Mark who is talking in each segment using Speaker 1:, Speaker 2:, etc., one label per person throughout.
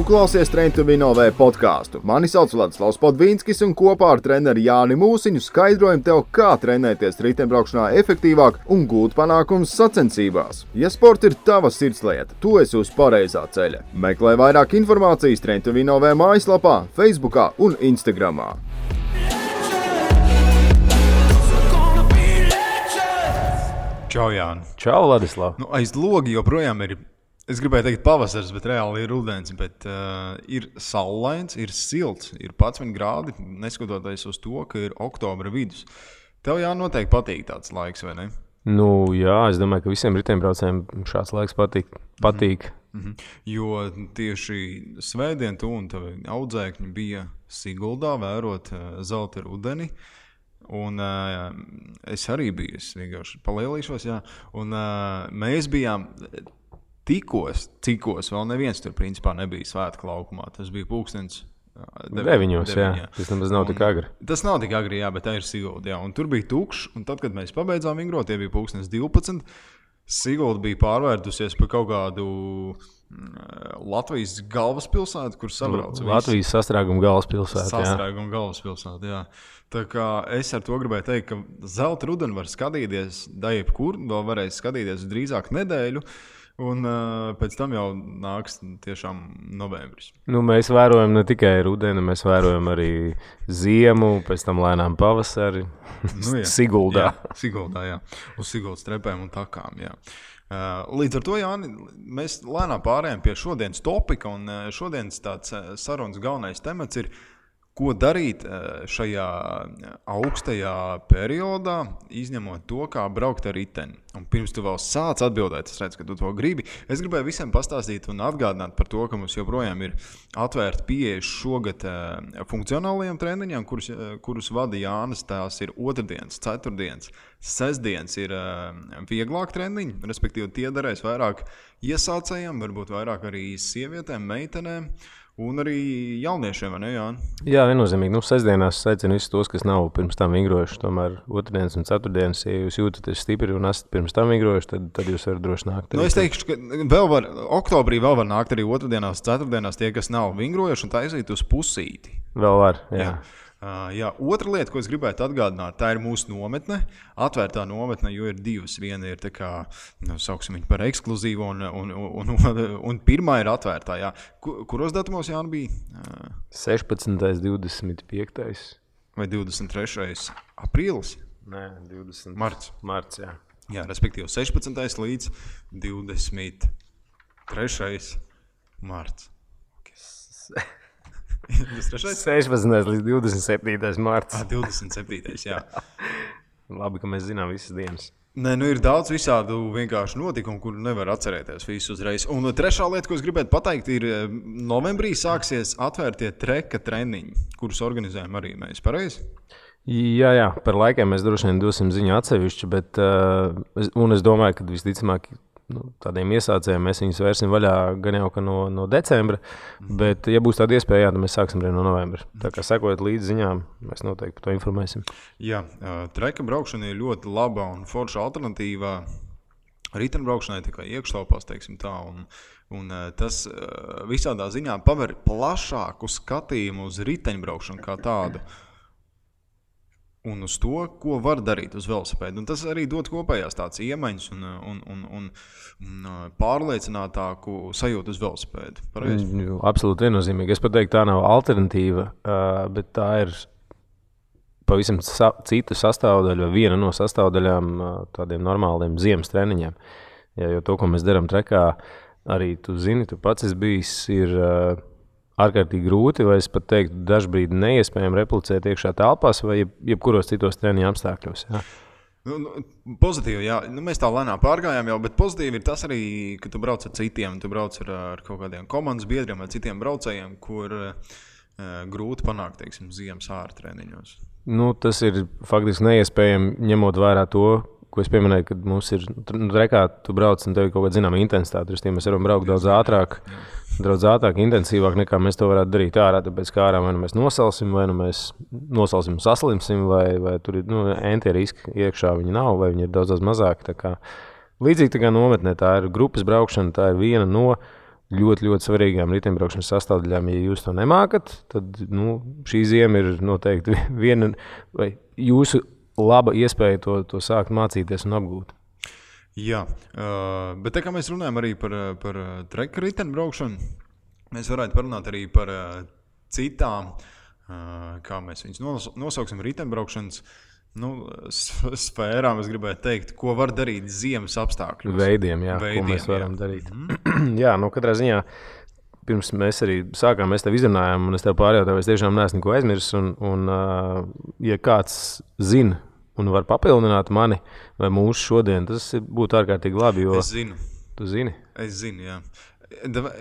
Speaker 1: klausies Train to Win OV podcastu. Mani sauc Vladislavs Podvīnskis un kopā ar treneri Jāni Mūsiņu skaidrojam tev, kā trenēties riteņbraukšanā efektīvāk un gūt panākumus sacensībās. Ja sports ir tava sirdslieta, tu esi uz pareizā ceļa. Meklē vairāk informācijas Train to Win OV mājaslapā, Facebookā un Instagramā.
Speaker 2: Čau, Jāni.
Speaker 3: Čau, Vladislav.
Speaker 2: Aiz logi joprojām ir, es gribēju teikt pavasars, bet reāli ir rudens, bet ir saulains, ir silts, ir 11 grādi, neskatoties uz to, ka ir oktobra vidus. Tev noteikti patīk tāds laiks, vai ne?
Speaker 3: Jā, es domāju, ka visiem riteņbraucējiem šāds laiks patīk.
Speaker 2: Jo tieši svētdien tu un tavi audzēkņi bija Siguldā vērot zelta rudeni. Un es arī biju, es vienkārši palielīšos, un mēs bijām cikos, vēl neviens tur principā nebija svētku laukumā, tas bija pulkstens
Speaker 3: 9, tas nemaz nav tik agri.
Speaker 2: Tas nav tik agri, bet tā ir Sigulda, un tur bija tukšs, un tad, kad mēs pabeidzām vingrot, tie bija pulkstens 12, Sigulda bija pārvērtusies par kaut kādu Latvijas galvaspilsētu, kur sabrauc visi.
Speaker 3: Latvijas sastrēguma galvaspilsētu,
Speaker 2: Sastrēguma galvaspilsētu, jā. Tā kā es ar to gribēju teikt, ka zelta rudeni var skatīties jebkur, vēl varēs skatīties drīzāk nedēļu, un pēc tam jau nāks tiešām novembris.
Speaker 3: Mēs vērojam ne tikai rudeni, mēs vērojam arī ziemu, pēc tam lēnām pavasari, Siguldā.
Speaker 2: Siguldā, jā. Uz Siguldas trepēm un takām, jā. Līdz ar to, Jāni, mēs lēnām pārējām pie šodienas topika, un šodienas tāds sarunas galvenais temats ir, ko darīt šajā augstajā periodā, izņemot to, kā braukt ar riteni. Un pirms tu vēl sāc atbildēt, es redzu, ka tu to gribi. Es gribēju visiem pastāstīt un atgādināt par to, ka mums joprojām ir atvērta pieeja šogad funkcionālajiem treniņiem, kurus vada Jānis. Tās ir otrdienas, ceturtdienas, sestdienas ir vieglāk treniņi, respektīvi tie darēs vairāk iesācējiem, varbūt vairāk arī sievietēm, meitenēm. Un arī jauniešiem, vai ne, Jāni?
Speaker 3: Jā, viennozīmīgi. Sestdienās aicinu visus tos, kas nav pirms tam vingrojuši. Tomēr otrdienas un ceturtdienas, ja jūs jūtaties stipri un esat pirms tam vingrojuši, tad jūs varat droši nākt.
Speaker 2: Es teikšu, ka oktobrī vēl var nākt arī otrdienās, ceturtdienās tie, kas nav vingrojuši un taisīt uz pusīti.
Speaker 3: Vēl var, jā.
Speaker 2: Jā, otra lieta, ko es gribētu atgādināt, tā ir mūsu nometne, atvērtā nometne, jo ir divas. Viena ir tā kā, sauksim viņu par ekskluzīvu, un pirmā ir atvērtā. Jā. Kuros datumos, Jāni, bija?
Speaker 3: 16. 25.
Speaker 2: Vai 23. aprīlis?
Speaker 3: Nē, 20.
Speaker 2: Marts,
Speaker 3: jā.
Speaker 2: Jā, respektīvi 16. līdz 23. marts.
Speaker 3: 16. līdz 27. marts.
Speaker 2: 27. jā.
Speaker 3: Labi, ka mēs zinām visas dienas.
Speaker 2: Nē, ir daudz visādu vienkārši notikumu, kur nevar atcerēties visu uzreiz. Un trešā lieta, ko es gribētu pateikt, ir novembrī sāksies atvērtie treka treniņi, kurus organizējam arī mēs, pareizi?
Speaker 3: Jā, par laikiem mēs droši vien dosim ziņu atsevišķi, bet es domāju, ka visticamāk tādiem iesācējiem mēs viņus vērsim vaļā gan jau no decembra, bet, ja būs tāda iespēja, tad mēs sāksim arī no novembra. Tā kā sekojot līdz ziņām, mēs noteikti par to informēsim.
Speaker 2: Jā, treka braukšana ir ļoti laba un forša alternatīva riteņbraukšanai, tā kā iekštelpās, teiksim tā, un tas visādā ziņā paver plašāku skatījumu uz riteņbraukšanu kā tādu. Un uz to, ko var darīt uz velosipēdu. Un tas arī dod kopējās tāds iemaņas un pārliecinātāku sajūtu uz velosipēdu. Pareizi?
Speaker 3: Absolūti viennozīmīgi. Es pat teiktu, tā nav alternatīva, bet tā ir pavisam cita sastāvdaļa, vai viena no sastāvdaļām tādiem normāliem ziemas treniņiem. Jo to, ko mēs darām trekā, arī tu zini, tu pats esi bijis, ir ārkārtīgi grūti, vai es pat teiktu, dažbrīd neiespējami replicēt iekšā telpās vai jebkuros citos treniņu apstākļos. Jā.
Speaker 2: Pozitīvi, jā. Mēs tā lēnām pārgājām jau, bet pozitīvi ir tas arī, ka tu brauc ar citiem, tu brauc ar kaut kādiem komandas biedriem vai citiem braucējiem, kur grūti panākt, teiksim, ziemas ārā treniņos.
Speaker 3: Tas ir faktiski neiespējami, ņemot vērā to, ko es pieminēju, kad mums ir trekā, tu brauc un tev ir kaut kāda zināma intensitāte. Mēs varam braukt daudz ātrāk, intensīvāk nekā mēs to varētu darīt ārā, tāpēc kā ārā vai nu mēs nosalsim, vai nu mēs nosalsim un saslimsim, vai tur ir entie riski iekšā viņi nav, vai viņi ir daudz mazāk. Līdzīgi tā kā nometnē, tā ir grupas braukšana, tā ir viena no ļoti, ļoti svarīgām riteņbraukšanas sastāvdaļām. Ja jūs to nemākat, tad šī ziema ir noteikti viena vai jūsu laba iespēja to sākt mācīties un apgūt.
Speaker 2: Jā, bet tā kā mēs runājam arī par treka riteņbraukšanu, mēs varētu parunāt arī par citām, kā mēs viņus nosauksim, riteņbraukšanas sfērām, es gribētu teikt, ko var darīt ziemas apstākļos.
Speaker 3: Veidiem, ko mēs varam darīt. Jā, katrā ziņā, pirms mēs arī sākām, mēs tev izrunājām, un es tev pārjautāju, es tiešām neesmu neko aizmirsis, un ja kāds zina un var papildināt mani vai mūsu šodien, tas būtu ārkārtīgi labi, jo...
Speaker 2: Es zinu.
Speaker 3: Tu zini?
Speaker 2: Es zinu, jā.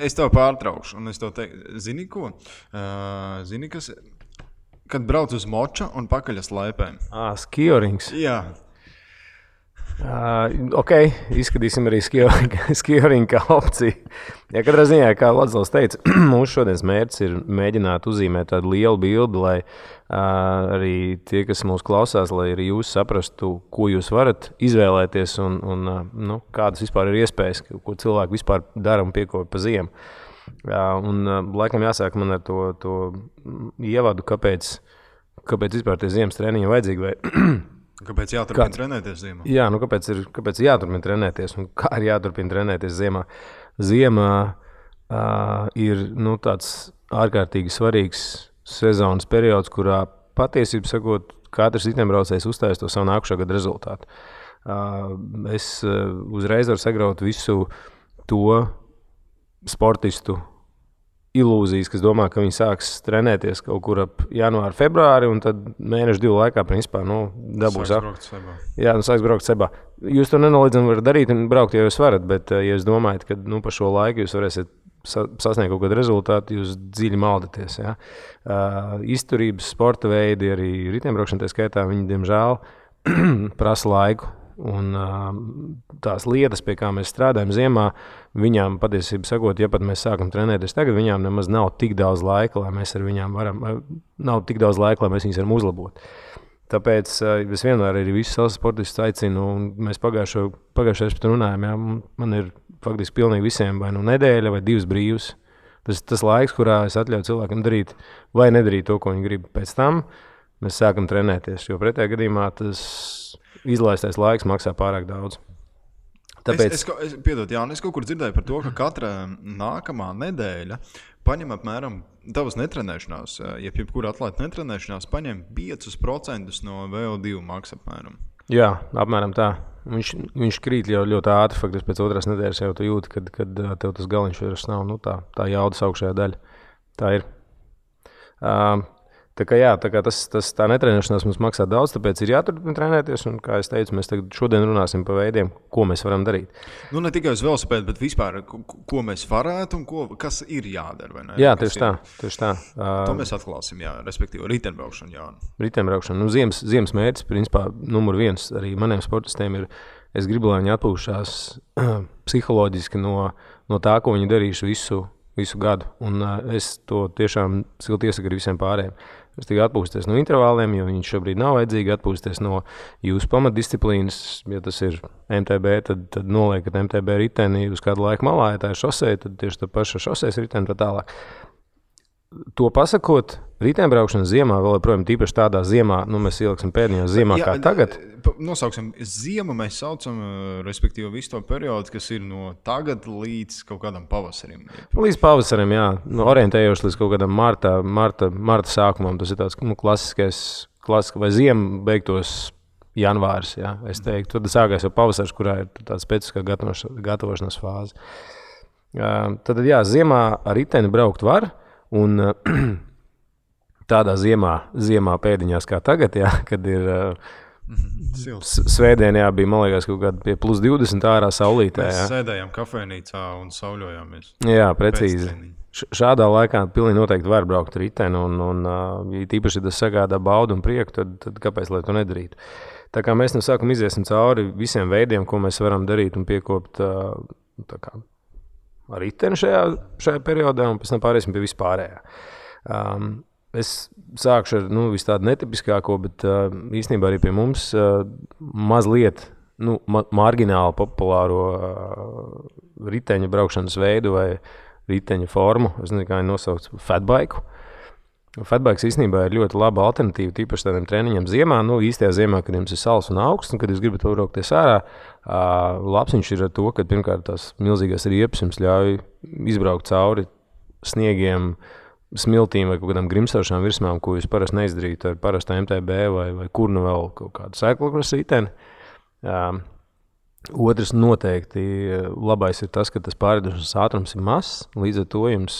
Speaker 2: Es tev pārtraukšu, un es tev teiktu, zini ko? Zini, kas... Kad brauc uz moča un pakaļas laipēm.
Speaker 3: Skiorings.
Speaker 2: Jā.
Speaker 3: Ok, izskatīsim arī skioringu kā opciju. Ja katrā ziņā, kā Ladzels teica, mūsu šodienas mērķis ir mēģināt uzzīmēt tādu lielu bildi, lai arī tie, kas mūs klausās, lai arī jūs saprastu, ko jūs varat izvēlēties un kādas vispār ir iespējas, ko cilvēki vispār dara un piekopja pa ziemu. Un laikam jāsāk man ar to ievadu, kāpēc vispār tie ziemas treniņi vajadzīgi vai...
Speaker 2: Kāpēc jāturpina trenēties ziemā?
Speaker 3: Jā, kāpēc jāturpina trenēties un kā ir jāturpina trenēties ziemā? Ziemā ir tāds ārkārtīgi svarīgs sezonas periods, kurā patiesībā sakot, katrs riteņbraucējs uzstājas to savu nākušā gada rezultātu. Es uzreiz varu sagraut visu to sportistu ilūzijas, kas domā, ka viņi sāks trenēties kaut kur ap janvāru, februāri, un tad mēnešu 2 laikā, principā, dabūs. Sāks braukt sebā. Jūs to nenoliedzami varat darīt un braukt, ja jūs varat, bet, ja jūs domājat, ka pa šo laiku jūs varēsiet sasniegt kaut kādu rezultātu, jūs dziļi maldaties. Ja? Izturības, sporta veidi, arī riteņbraukšana, tā skaitā, viņi, diemžēl, prasa laiku. Un tās lietas, pie kā mēs strādājam ziemā, viņām patiesībā sakot, ja pat mēs sākam trenēties tagad, viņām nemaz nav tik daudz laika, lai mēs viņas varam uzlabot. Tāpēc es vienmēr arī visus savus sportistus aicinu, un mēs pagājušajā pat runājam, jā, man ir faktiski pilnīgi visiem vai nedēļa vai 2 brīvs. Tas laiks, kurā es atļauju cilvēkam darīt vai nedarīt to, ko viņi grib. Pēc tam mēs sākam trenēties, jo pretējā gadījumā tas izlaistais laiks maksā pārāk daudz. Tāpēc...
Speaker 2: Es kaut kur dzirdēju par to, ka katra nākamā nedēļa paņem apmēram tavas netrenēšanās, jebkura atlēta netrenēšanās, paņem 5% no VO2 maksa apmēram.
Speaker 3: Jā, apmēram tā. Viņš krīt jau ļoti ātri, faktiski pēc 2. nedēļas jau tu jūti, kad tev tas galiņš vairs nav, tā jaudas augšējā daļa. Tā ir. Tā kā tā netrenēšanās mums maksā daudz, tāpēc ir jāturpina trenēties, un, kā es teicu, mēs šodien runāsim par veidiem, ko mēs varam darīt.
Speaker 2: Ne tikai uz velosipēdu, bet vispār, ko mēs varētu un kas ir jādara, vai ne?
Speaker 3: Jā, tieši tā.
Speaker 2: To mēs atklāsim, jā, respektīvi, riteņbraukšanu, jā.
Speaker 3: Riteņbraukšanu. Ziemas mērķis, principā, numur 1 arī maniem sportistiem ir, es gribu, lai viņi atpūšās psiholoģiski no tā, ko viņi darīšu visu gadu, un es to tiešām silti iesaku arī visiem pārējiem. Es tikai atpūsties no intervāliem, jo viņš šobrīd nav vajadzīgi, atpūsties no jūsu pamatdisciplīnas. Ja tas ir MTB, tad noliekat MTB riteni uz kādu laiku malā, ja tā ir šosei, tad tieši tā paša šoseis riteni tā tālāk. To pasakot, riteņbraukšana ziemā, vēl joprojām tīpaši tādā ziemā, mēs ieliksim pēdējā ziemā kā tagad.
Speaker 2: Nosauksim ziemu, mēs saucam, respektīvi, visu to periodu, kas ir no tagad līdz kaut kādam pavasarim.
Speaker 3: Līdz pavasarim, jā. Orientējoši līdz kaut kādam marta sākumam. Tas ir tāds klasiskais, vai ziema beigtos janvārs, jā. Es teiktu, tad sākās jau pavasars, kurā ir tāds specifiskā gatavošanās fāze. Tad, jā, ziemā ar riteni braukt var. Un tādā ziemā pēdiņās kā tagad, jā, kad ir svētdien, jā, bija, man liekas, kaut kāda pie plus 20 ārā saulītē.
Speaker 2: Mēs sēdējām kafejnīcā un sauļojāmies.
Speaker 3: Jā, precīzi. Šādā laikā pilnīgi noteikti var braukt riteni, un ja tīpaši tas sagādā baudu un prieku, tad kāpēc, lai to nedarītu? Tā kā mēs no sākuma iziesim cauri visiem veidiem, ko mēs varam darīt un piekopt ar riteni šajā periodā, un pēc tam pārēsim pie vispārējā. Es sākšu ar visu tādu netipiskāko, bet īstenībā arī pie mums mazliet margināli populāro riteņu braukšanas veidu vai riteņa formu, es nezinu, kā viņi nosauc, fatbike. Fatbikes īstenībā ir ļoti laba alternatīva, tīpaši tādiem treniņiem ziemā. Īstajā ziemā, kad jums ir sals un augsts, un kad jūs gribat braukties ārā, labs viņš ir ar to, ka pirmkārt tās milzīgās riepas jums ļauj izbraukt cauri sniegiem, smiltīm vai kaut kādām grimstošām virsmām, ko jūs parasti neizdarītu ar parastu MTB vai kur nu vēl kaut kādu cyclocross riteni. Otrs noteikti labais ir tas, ka tas pārēdošanas ātrums ir mazs, līdz ar to jums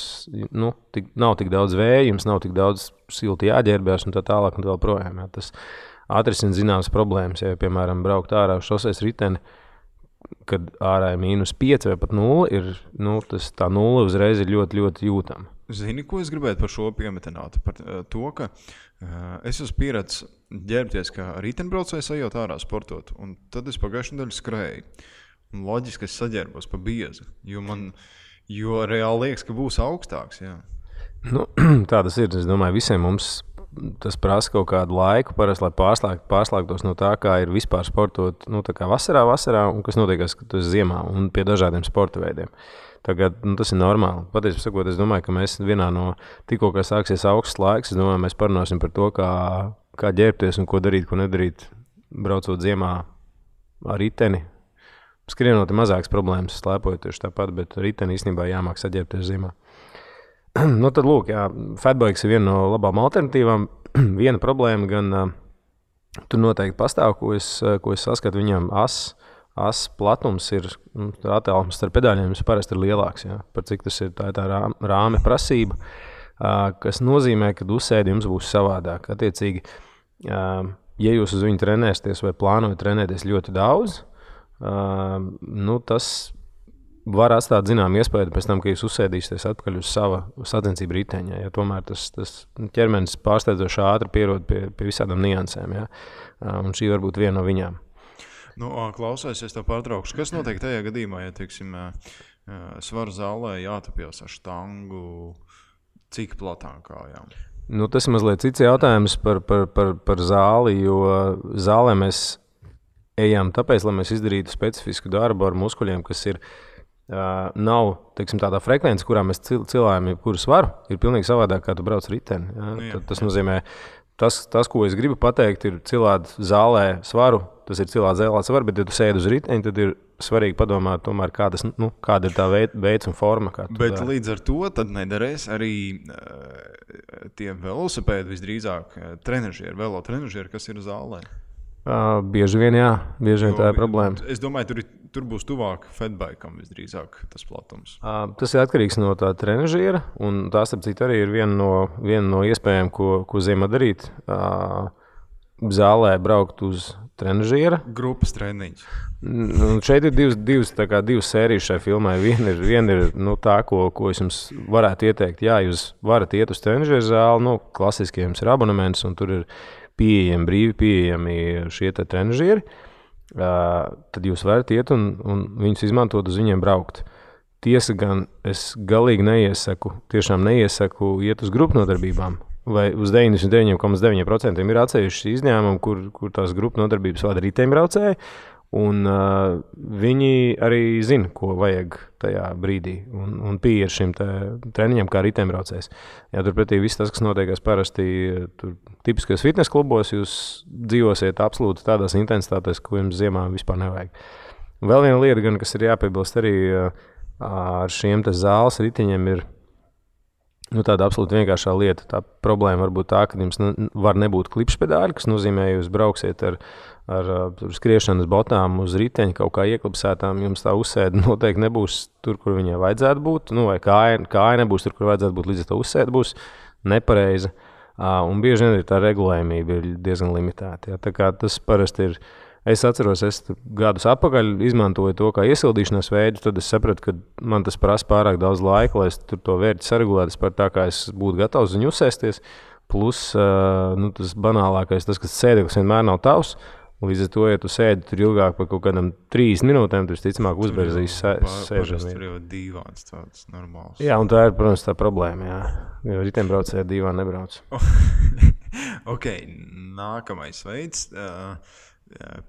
Speaker 3: nav tik daudz vēja, jums nav tik daudz silti jāģērbjās un tā tālāk un tā vēl projām. Tas atrisina zināmas problēmas, ja piemēram braukt ārā uz šoseis riteni, kad ārā ir -5 vai pat 0, tā 0 uzreiz ir ļoti, ļoti jūtama.
Speaker 2: Zini, ko es gribētu par šo piemetināt? Par to, ka es esmu pieredzis ģērbties, kā riteņbraucējs ejot ārā sportot, un tad es pagājušajā nedēļā skrēju. Un loģiski es saģērbos pa biezi, jo reāli liekas, ka būs augstāks. Jā.
Speaker 3: Tā tas ir. Es domāju, visiem mums tas prasa kaut kādu laiku, parasti, lai pārslēgtos no tā, kā ir vispār sportot, tā kā vasarā, un kas notiekās, kad tu esi ziemā un pie dažādiem sporta veidiem. Tagad tas ir normāli. Patiesībā sakot, es domāju, ka mēs vienā no tikko, kā sāksies augsts laiks, es domāju, mēs parunāsim par to, kā ģērbties un ko darīt, ko nedarīt, braucot ziemā ar riteni. Skrienot ir mazākas problēmas, slēpojot tieši tāpat, bet riteni īstenībā jāmāk saģērbties ziemā. Tad lūk, jā, fatbikes ir viena no labām alternatīvām. Viena problēma gan tur noteikti pastāv, ko es saskatu viņam as platums ir, attālums starp pedāļiem parasti ir lielāks, jā, par cik tas ir tā rāme prasība, kas nozīmē, ka uzsēdi jums būs savādāk. Attiecīgi, ja jūs uz viņu trenēsieties vai plānojat trenēties ļoti daudz, tas var atstāt zinām iespēju pēc tam, ka jūs uzsēdīsieties atpakaļ uz sava sacensību riteņa. Ja tomēr tas ķermenis pārsteidzoši ātri pierod pie visādām niansēm, ja? Un šī var būt viena no viņām.
Speaker 2: Klausies, es tev pārtraukšu. Kas notiek tajā gadījumā, ja, teiksim, svaru zālē jātapjas ar štangu, cik platām kājām?
Speaker 3: Tas ir mazliet cits jautājums par zāli, jo zālē mēs ejam tāpēc, lai mēs izdarītu specifisku darbu ar muskuļiem, kas ir nav, teiksim, tādā frekvence, kurā mēs cilājam jebkuru svaru, ir pilnīgi savādāk, kā tu brauc riteni. Ja? Tas nozīmē, tas, ko es gribu pateikt, ir cilāt zālē svaru, tas ir cilāt zālē svaru, bet ja tu sēdi uz riteni, tad ir svarīgi padomāt tomēr, kāda ir tā veids un forma.
Speaker 2: Bet līdz ar to tad nederēs arī tie velosipēdi visdrīzāk velotrenažieri, kas ir zālē.
Speaker 3: Bieži vien tā ir problēma.
Speaker 2: Es domāju, tur būs tuvāk fatbikam visdrīzāk tas platums.
Speaker 3: Tas ir atkarīgs no tā trenažiera, un tā starp citu arī ir viena no iespējām, ko ziemā darīt. Zālē braukt uz trenažiera.
Speaker 2: Grupas treniņš.
Speaker 3: Šeit ir divas sērijas šai filmai. Viena ir tā, ko es jums varētu ieteikt. Jā, jūs varat iet uz trenažiera zāli, klasiski jums ir abonements, un tur ir brīvi pieejami šie trenažieri. Tad jūs varat iet un viņus izmantot, uz viņiem braukt. Tiesa gan es galīgi tiešām neiesaku iet uz grupu nodarbībām. Vai uz 99,9% ir atsevišķi izņēmumi, kur tās grupu nodarbības vada riteņbraucēji, un viņi arī zina, ko vajag tajā brīdī, un pieeja šim treniņam kā riteņbraucējs. Ja turpretī viss tas, kas notiekās parasti tipiskajos fitnes klubos, jūs dzīvosiet absolūti tādās intensitātēs, ko jums ziemā vispār nevajag. Vēl viena lieta, gan, kas ir jāpiebilst arī ar šiem zāles riteņiem, ir tāda absolūti vienkāršā lieta. Tā problēma var būt tā, ka jums var nebūt klipšpedāļi, kas nozīmē, ja jūs brauksiet ar skriešanas botām uz riteņa kaut kā ieklipsētām, jums tā uzsēde noteikti nebūs tur, kur viņai vajadzētu būt, vai kāja nebūs tur, kur vajadzētu būt, līdz ar to uzsēde būs nepareiza. Un bieži vien tā regulējumība ir diezgan limitēta. Ja? Tā kā tas parasti ir. Es atceros, es gadus atpakaļ izmantoju to kā iesildīšanās veidu, tad es sapratu, ka man tas prasa pārāk daudz laika, lai es tur to vērti saregulētu par tā, kā es būtu gatavs viņu uzsēsties. Plus, tas banālākais, tas, kas sēdeklis vienmēr nav tavs, līdz ar to, ja tu sēdi tur ilgāk par kaut kādam 30 minūtēm, tu visticamāk uzberzīs sēžam.
Speaker 2: Tur jau dīvāns tāds normāls.
Speaker 3: Jā, un tā ir, protams, tā problēma, jā. Jo riteņbraucēji dīvāni nebrauc.
Speaker 2: Ok, nākamais veids.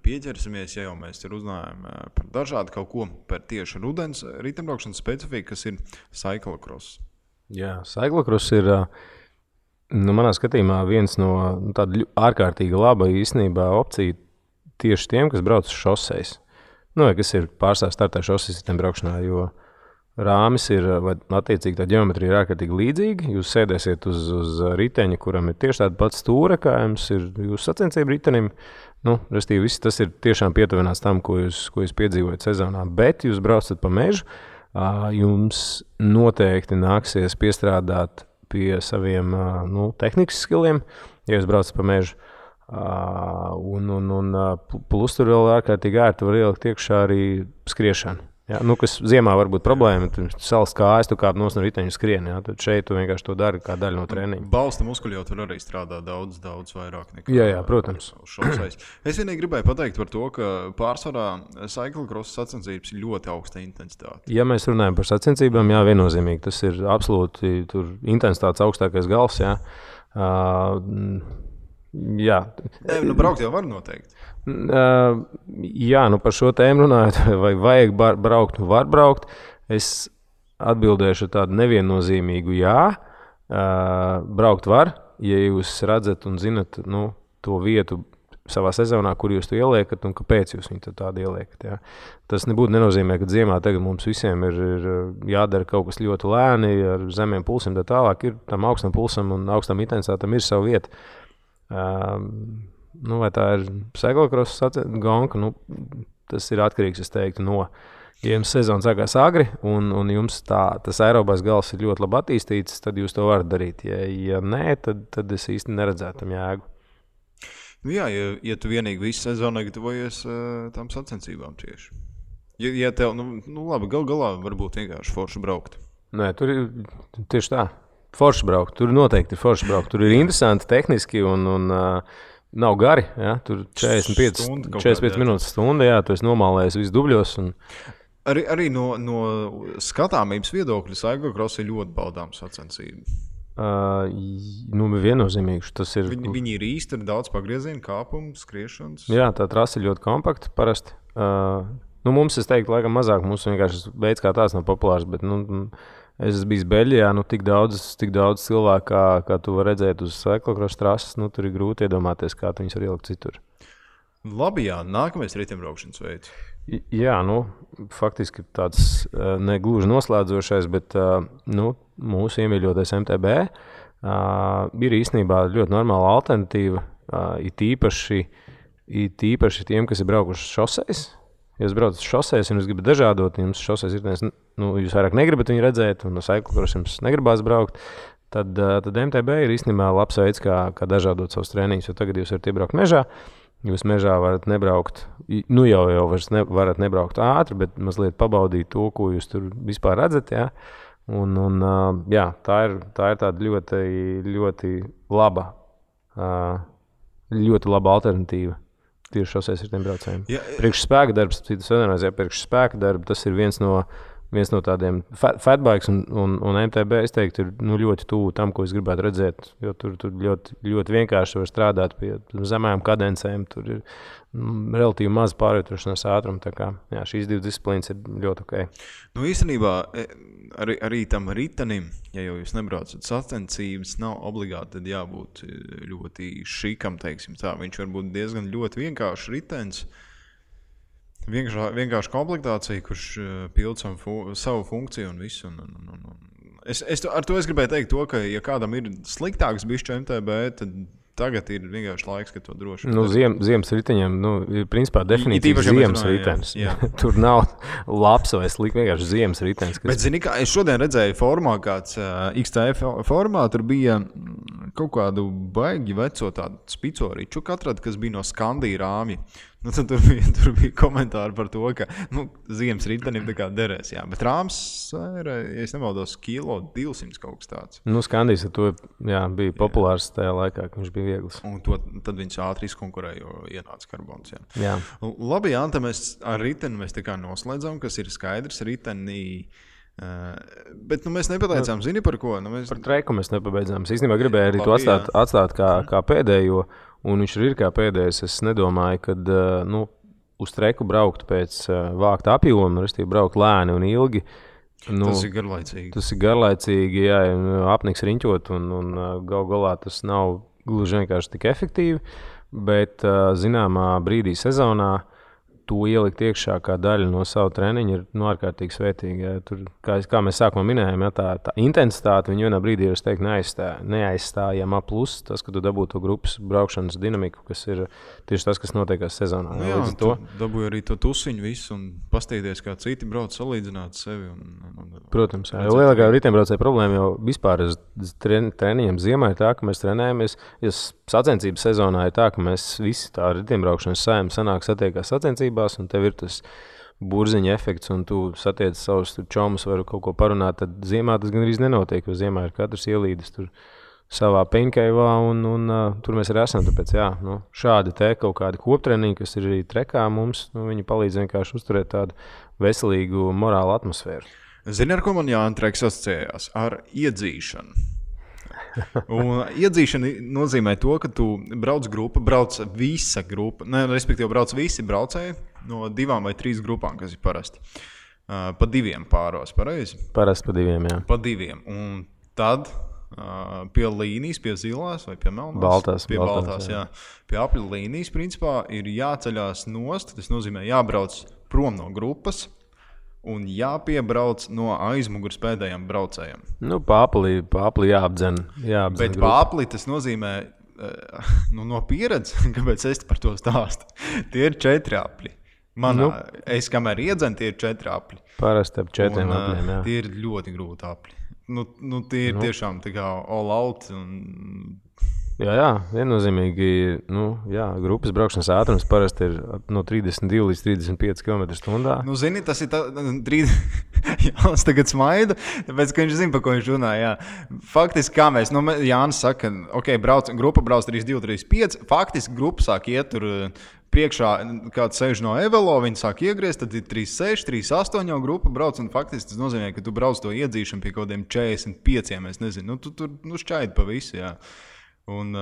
Speaker 2: pieķersimies, ja jau mēs ir uzrunājam par dažādu kaut ko, par tieši rudens riteņbraukšanas specifiku, kas ir cyclocross.
Speaker 3: Jā, cyclocross ir, manā skatījumā, viens no tāda ārkārtīgi laba īstenībā opcija tieši tiem, kas brauc uz šoseis. Vai kas ir pārstāv startē šoseis riteņbraukšanā, jo rāmis ir, vai attiecīgi tā ģeometrija ir ārkārtīgi līdzīga. Jūs sēdēsiet uz riteņa, kuram ir tieši tāda pats stūra, kā jums ir jūsu sacensību ritenim. Restīvi, viss tas ir tiešām pietuvināts tam, ko jūs piedzīvojat sezonā. Bet jūs braucat pa mežu, jums noteikti nāksies piestrādāt pie saviem tehnikas skilliem, ja jūs braucat pa mežu. Plus tur vēl ārkārtīgi ērti var ielikt iekšā arī skriešanu. Ja, kas ziemā var būt problēma, tu salas kājas, tu kāp no riteņa skrieni, ja, tad šeit tu vienkārši to dari kā daļu no treniņa.
Speaker 2: Balsta muskuļi jau tur arī strādā daudz vairāk nekā.
Speaker 3: Jā, protams.
Speaker 2: Es vienīgi gribēju pateikt par to, ka pārsvarā cyclocross sacensības ir ļoti augsta intensitāte.
Speaker 3: Ja mēs runājam par sacensībām, jā, viennozīmīgi, tas ir absolūti tur intensitātes augstākais gals, jā. Jā.
Speaker 2: Braukt jau var noteikti.
Speaker 3: Jā, par šo tēmu runājot, vai vajag braukt, var braukt. Es atbildēšu tādu neviennozīmīgu jā. Braukt var, ja jūs redzat un zinat to vietu savā sezonā, kur jūs to ieliekat un kāpēc jūs viņu tādu ieliekat. Jā. Tas nebūtu nenozīmē, ka ziemā tagad mums visiem ir jādara kaut kas ļoti lēni, ar zemiem pulsiem, tā tālāk ir tam augstam pulsam un augstam intensitātam ir savu vietu. Vai tā ir cyclocross gonka, tas ir atkarīgs, es teiktu, ja jums sezona sākās agri un jums tas aerobais gals ir ļoti labi attīstīts, tad jūs to varat darīt. Ja nē, tad es īsti neredzētu tam jēgu.
Speaker 2: Jā, ja tu vienīgi visu sezonu gatavojies tām sacensībām tieši. Ja tev, labi, galā varbūt vienkārši forši braukt.
Speaker 3: Nē, tur ir tieši tā. Forši braukt, tur noteikti ir forši braukt. Tur ir interesanti tehniski un nav gari. Ja? Tur 45 minūtes stunda, jā, tu esi nomālējis visu dubļos.
Speaker 2: Arī no skatāmības viedokļa cyclocross ir ļoti baudāms sacensība.
Speaker 3: Viennozīmīgi. Tas ir.
Speaker 2: Viņi ir īsti daudz pagriezienu, kāpumu, skriešanas.
Speaker 3: Jā, tā trasa ir ļoti kompakta parasti. Mums, es teiktu, laikam mazāk. Mums vienkārši veids kā tāds nav populārs, bet es esmu bijis Beļģijā, tik daudz cilvēku, kā tu vari redzēt uz cyclocross trases, tur ir grūti iedomāties, kā tu viņus var ielikt citur.
Speaker 2: Labi, jā, nākamais riteņbraukšanas veids.
Speaker 3: Jā, faktiski tāds negluži noslēdzošais, bet mūsu iemīļotais MTB ir īstenībā ļoti normāla alternatīva, it īpaši tiem, kas ir braukuši šoseis. Ja jūs braucat uz šoseis un jūs gribat dažādot, jums šoseis ir, jūs vairāk negribat viņu redzēt, un no cyclocross jums negribās braukt, tad MTB ir īstenībā labs veids, kā dažādot savus treniņus, jo tagad jūs varat iebraukt mežā, jūs mežā varat nebraukt, jau varat nebraukt ātri, bet mazliet pabaudīt to, ko jūs tur vispār redzat, jā. Jā, tā ir tāda ļoti laba alternatīva. Tieši šoseis riteņbraucējiem. Priekš spēka darbs, tas ir viens no tādiem fatbikes un MTB, es teiktu, ir ļoti tuvu tam, ko es gribētu redzēt, jo tur ļoti, ļoti vienkārši var strādāt pie zemējām kadencēm, tur ir relatīvi maz pārvietošanās ātruma, tā kā šīs divas disciplīnas ir ļoti ok.
Speaker 2: Īstenībā arī tam ritenim, ja jau jūs nebraucat sacensības, nav obligāti tad jābūt ļoti šikam, teiksim tā. Viņš var būt diezgan ļoti vienkāršs ritens, vienkārši komplektācija, kurš pild savu funkciju un visu. Ar to es gribēju teikt to, ka ja kādam ir sliktāks bišķi MTB, tad tagad ir vienkārši laiks, ka to droši.
Speaker 3: Ziemas riteņiem, ir principā definīcija ziemas ritenis. Tur nav labs vai slikts, vienkārši ziemas ritenis.
Speaker 2: Bet zini, kā es šodien redzēju formā, kāds XTF formā, tur bija kaut kādu baigi veco tādu spicoriču, kas bija no Skandija rāmja. Tur bija komentāri par to, ka ziemas ritenim tā kā derēs, jā. Bet rāms ir, ja es nemaldos, 1,200 kaut kas tāds.
Speaker 3: Skandijs ar to bija populārs tajā laikā, ka viņš bija viegls.
Speaker 2: Un tad viņš ātri izkonkurēja, jo ienāca karbons, Labi, Anta, mēs ar riteni tā kā noslēdzam, kas ir skaidrs. Riteni Bet mēs nepateicām, zini par ko?
Speaker 3: Par treku mēs nepabeidzām. Es īstenībā gribēju arī to atstāt kā pēdējo, un viņš ir kā pēdējais. Es nedomāju, ka uz treku braukt pēc vākta apjoma, restīvi braukt lēni un ilgi.
Speaker 2: Tas ir garlaicīgi.
Speaker 3: Tas ir garlaicīgi, jā, apniks riņķot, un gal galā tas nav gluži vienkārši tik efektīvi, bet zināmā brīdī sezonā to ielikt iekšā kā daļa no savu treniņu ir ārkārtīgi svētīgi. Ja. Tur, kā mēs sākumā minējām, ja, tā intensitāte viņu vienā brīdī ir, es teiktu, neaizstājama plus tas, ka tu dabū to grupas braukšanas dinamiku, kas ir tieši tas, kas notiekās sezonā.
Speaker 2: Jā, tu dabūji arī to tusiņu visu un pastīties, kā citi brauc salīdzināt sevi.
Speaker 3: Protams, jā. Lielākā riteņbraucēja problēma jau vispār treniņiem ziemā ir tā, ka mēs trenējamies, ja sacensības sezonā ir tā, ka mēs visi tā riteņbraukšanas saima sanāk satiekās sacensības, un tev ir tas burziņa efekts, un tu satiec savus čomus, varu kaut ko parunāt, tad ziemā tas gan arī nenotiek, jo ziemā ir katrs ielīdis tur savā peņkaivā, un tur mēs arī esam. Tāpēc, jā, šādi te kaut kādi koptreniņi, kas ir arī trekā mums, viņi palīdz vienkārši uzturēt tādu veselīgu morālu atmosfēru.
Speaker 2: Zini, ar ko man Jānis Treks asociējās? Ar iedzīšanu. Un iedzīšana nozīmē to, ka tu brauc visa grupa, respektīvi brauc visi braucēji no 2 vai 3 grupām, kas ir parasti. Pa 2 pāros, pareizi?
Speaker 3: Parasti pa 2, jā.
Speaker 2: Pa 2. Un tad pie līnijas, pie zilās vai pie melnās? Pie baltās, jā. Pie apļu līnijas, principā, ir jāceļās nost, tas nozīmē jābrauc prom no grupas, un jāpiebrauc no aizmugures pēdējiem braucējiem.
Speaker 3: Pāpli jāapdzen.
Speaker 2: Bet pāpli tas nozīmē, no pieredzes, kāpēc es par to stāstu, tie ir 4 apļi. Es kamēr iedzenu, tie ir 4 apļi.
Speaker 3: Parasti ap 4 apļiem, jā.
Speaker 2: Tie ir ļoti grūti apļi. Tie ir tiešām tā kā all out un...
Speaker 3: Jā, viennozīmīgi, grupas braukšanas ātrums parasti ir no 32 līdz 35 km/h.
Speaker 2: Zini, tas ir Jānis tagad smaida, tāpēc, ka viņš zina, par ko viņš runā, jā. Faktiski, kā mēs, Jānis saka, grupa brauc 32, 35, faktiski grupa sāk iet tur priekšā, kāds sēž no Evelo, viņi sāk iegriezt, tad ir 36, 38 jau grupa brauc, un faktiski tas nozīmē, ka tu brauc to iedzīšanu pie kaut kādiem 45, es nezinu, tu tur šķaidi pa visu, jā. Un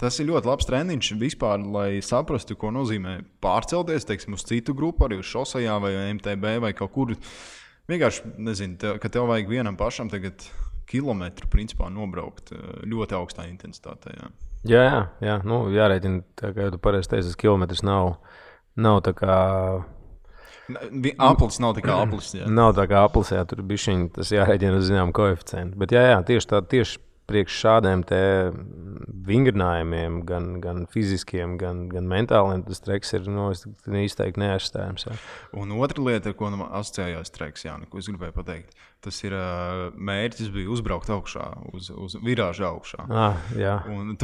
Speaker 2: tas ir ļoti labs treniņš vispār, lai saprastu, ko nozīmē pārcelties, teiksim, uz citu grupu, arī uz šosejā vai MTB vai kaut kur. Vienkārši, nezinu, ka tev vajag vienam pašam tagad kilometru, principā, nobraukt ļoti augstā intensitātē, jā.
Speaker 3: Jā, jārēķina, tā kā tu pareizi teici, kilometrs nav tā kā...
Speaker 2: Aplis nav tā kā aplis, jā.
Speaker 3: Nav tā kā aplis, jā, tur bišķiņ, tas jārēķina uz zinām koeficientu. Bet jā, tieši priekš šādiem te vingrinājumiem, gan fiziskiem, gan mentāliem, tas treks ir izteikti neaizstājams. Jā.
Speaker 2: Un otra lieta, ar ko asociējās treks, Jāni, ko es gribēju pateikt, tas ir mērķis bija uzbraukt augšā, uz virāžu augšā.
Speaker 3: Jā.
Speaker 2: Un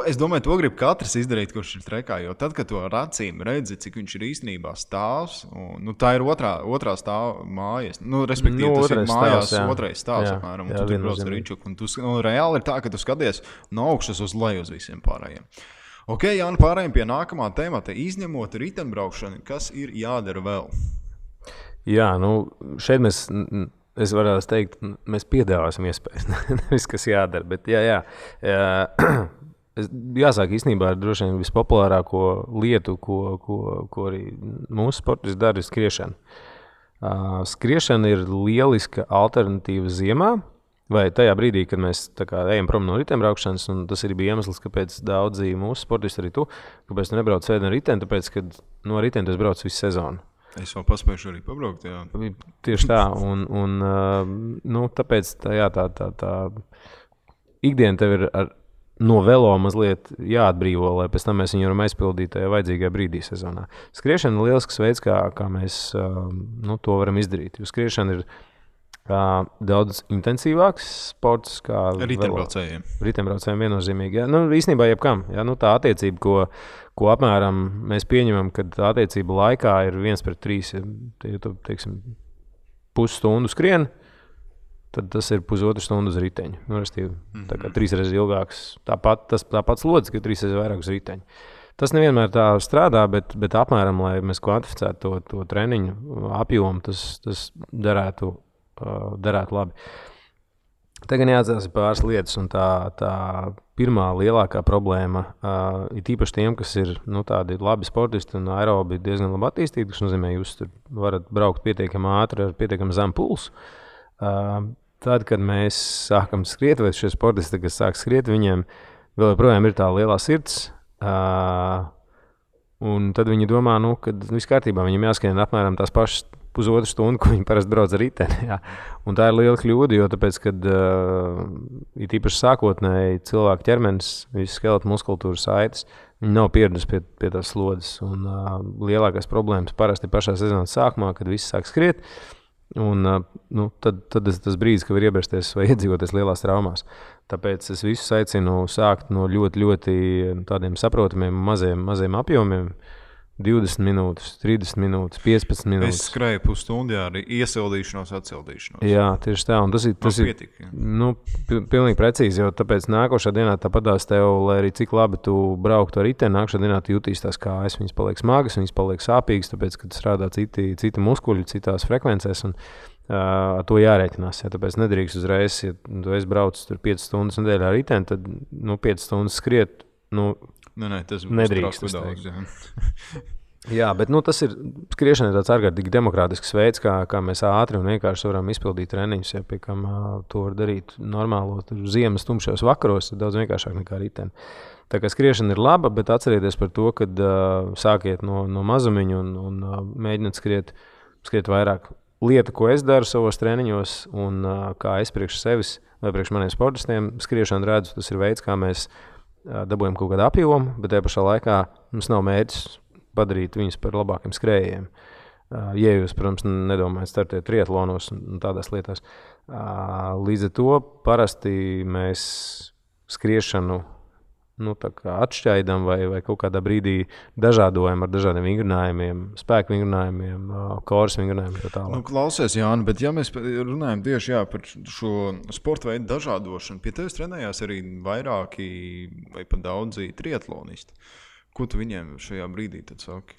Speaker 2: es domāju, to grib katrs izdarīt, kurš ir trekā, jo tad, kad to ar acīm redzi, cik viņš ir īstenībā stāvs, un tā ir otrā stāva mājas, respektīvi tas ir mājās otrais stāvs, apmēram, un tu tur brauc ar riņčuku, un reāli ir tā, ka tu skaties no augšas uz leju uz visiem pārējiem. Ok, Jāni, pārējiem pie nākamā temata, izņemot riteņbraukšanu, kas ir jādara vēl?
Speaker 3: Jā, šeit es varētu teikt, mēs piedāvāsim iespējas, nevis kas jādara, bet jā. Jāsāk īstenībā ar droši vien vispopulārāko lietu, ko arī mūsu sportisti dara, ir skriešana. Skriešana ir lieliska alternatīva ziemā, vai tajā brīdī, kad mēs ejam prom no riteņbraukšanas, un tas arī bija iemesls, kāpēc daudzi mūsu sportisti, arī tu, kāpēc tu nebrauc sēdi ar riteni, tāpēc, ka no riteni tu brauc visu sezonu.
Speaker 2: Es vēl paspējuši arī pabraukt, jā.
Speaker 3: Tieši tā, un tāpēc tā ikdiena tev ir no velo mazliet jāatbrīvo, lai pēc tam mēs viņu varam aizpildīt tajā vajadzīgajā brīdī sezonā. Skriešana ir lielisks veids, kā mēs to varam izdarīt, jo skriešana ir daudz intensīvāks sports kā
Speaker 2: riteņbraucējiem.
Speaker 3: Riteņbraucējiem viennozīmīgi. Jā. Īstenībā jebkam. Jā, tā attiecība, ko apmēram mēs pieņemam, kad tā attiecība laikā ir 1:3. Ja tu, teiksim, pusstundu skrien, tad tas ir pusotru stundu uz riteņu. Tā kā 3 reizes ilgāks. Tāpat slodzes, ka 3 reizes vairāk uz riteņu. Tas nevienmēr tā strādā, bet apmēram, lai mēs kvantificētu to treniņu apjomu, tas darētu derētu labi. Tagad jāatcerās pāris lietas, un tā pirmā lielākā problēma ir īpaši tiem, kas ir tādi labi sportisti un aerobi diezgan labi attīstīti, kas nozīmē, jūs tur varat braukt pietiekami ātri ar pietiekami zemu pulsu. Tad, kad mēs sākam skriet, vai šie sportisti, kas sāk skriet, viņiem vēl joprojām ir tā lielā sirds, un tad viņi domā, ka viss kārtībā, viņiem jāskrien apmēram tās pašas pusotru stundu, ko viņi parasti brauc ar riteni. Jā. Un tā ir liela kļūda, jo tāpēc, kad ir īpaši sākotnēji cilvēku ķermenis, visas skeleta muskultūra saites, viņi nav pieraduši pie tās slodzes. Un lielākās problēmas parasti ir pašā sezonas sākumā, kad visi sāk skriet. Un tad tas brīdis, kad var iebrasties vai iedzīvoties lielās traumās. Tāpēc es visus aicinu sākt no ļoti, ļoti tādiem saprotamiem maziem apjomiem. 20 minūtes, 30 minūtes, 15 minūtes.
Speaker 2: Es skrēju pusstundu ar iesildīšanos, atsildīšanos.
Speaker 3: Jā, tieši tā. Un tas ir pilnīgi precīzi, jo tāpēc nākošā dienā tāpatās tev, lai arī cik labi tu brauktu ar riteni, nākošā dienā tu jutīs tās kājas, viņas paliek smagas, viņas paliek sāpīgas, tāpēc, kad strādā citi muskuļi, citās frekvencēs, un ar to jārēķinās. Ja, tāpēc nedrīkst uzreiz, ja tu esi braucis tur 5 stundas nedēļā ar riteni, tad 5 stundas skriet,
Speaker 2: tas
Speaker 3: nedrīkst daudz. Jā, bet tas ir skriešana ir tāds ārkārtīgi demokrātisks veids, kā mēs ātri un vienkārši varam izpildīt treniņus, ja pie kam to var darīt normālos ziemas tumšos vakaros, ir daudz vienkāršāk nekā riteni. Tā kā skriešana ir laba, bet atcerieties par to, kad sākiet no mazumiņa un mēģiniet skriet vairāk. Lieta, ko es daru savos treniņos un kā es priekš sevis vai priekš maniem sportistiem skriešanu redzu, tas ir veids, kā mēs dabūjam kaut kādu apjomu, bet tajā pašā laikā mums nav mērķis padarīt viņus par labākiem skrējējiem. Ja jūs, protams, nedomājat startēt triatlonos un tādās lietās. Līdz ar to parasti mēs skriešanu atšķaidam vai kaut kādā brīdī dažādojam ar dažādiem vingrinājumiem, spēku vingrinājumiem, koras vingrinājumiem tā tālāk.
Speaker 2: Klausies, Jāni, bet ja mēs runājam tieši par šo sporta veidu dažādošanu, pie tevis trenējās arī vairāki vai pat daudzi triatlonisti. Ko tu viņiem šajā brīdī tad saki?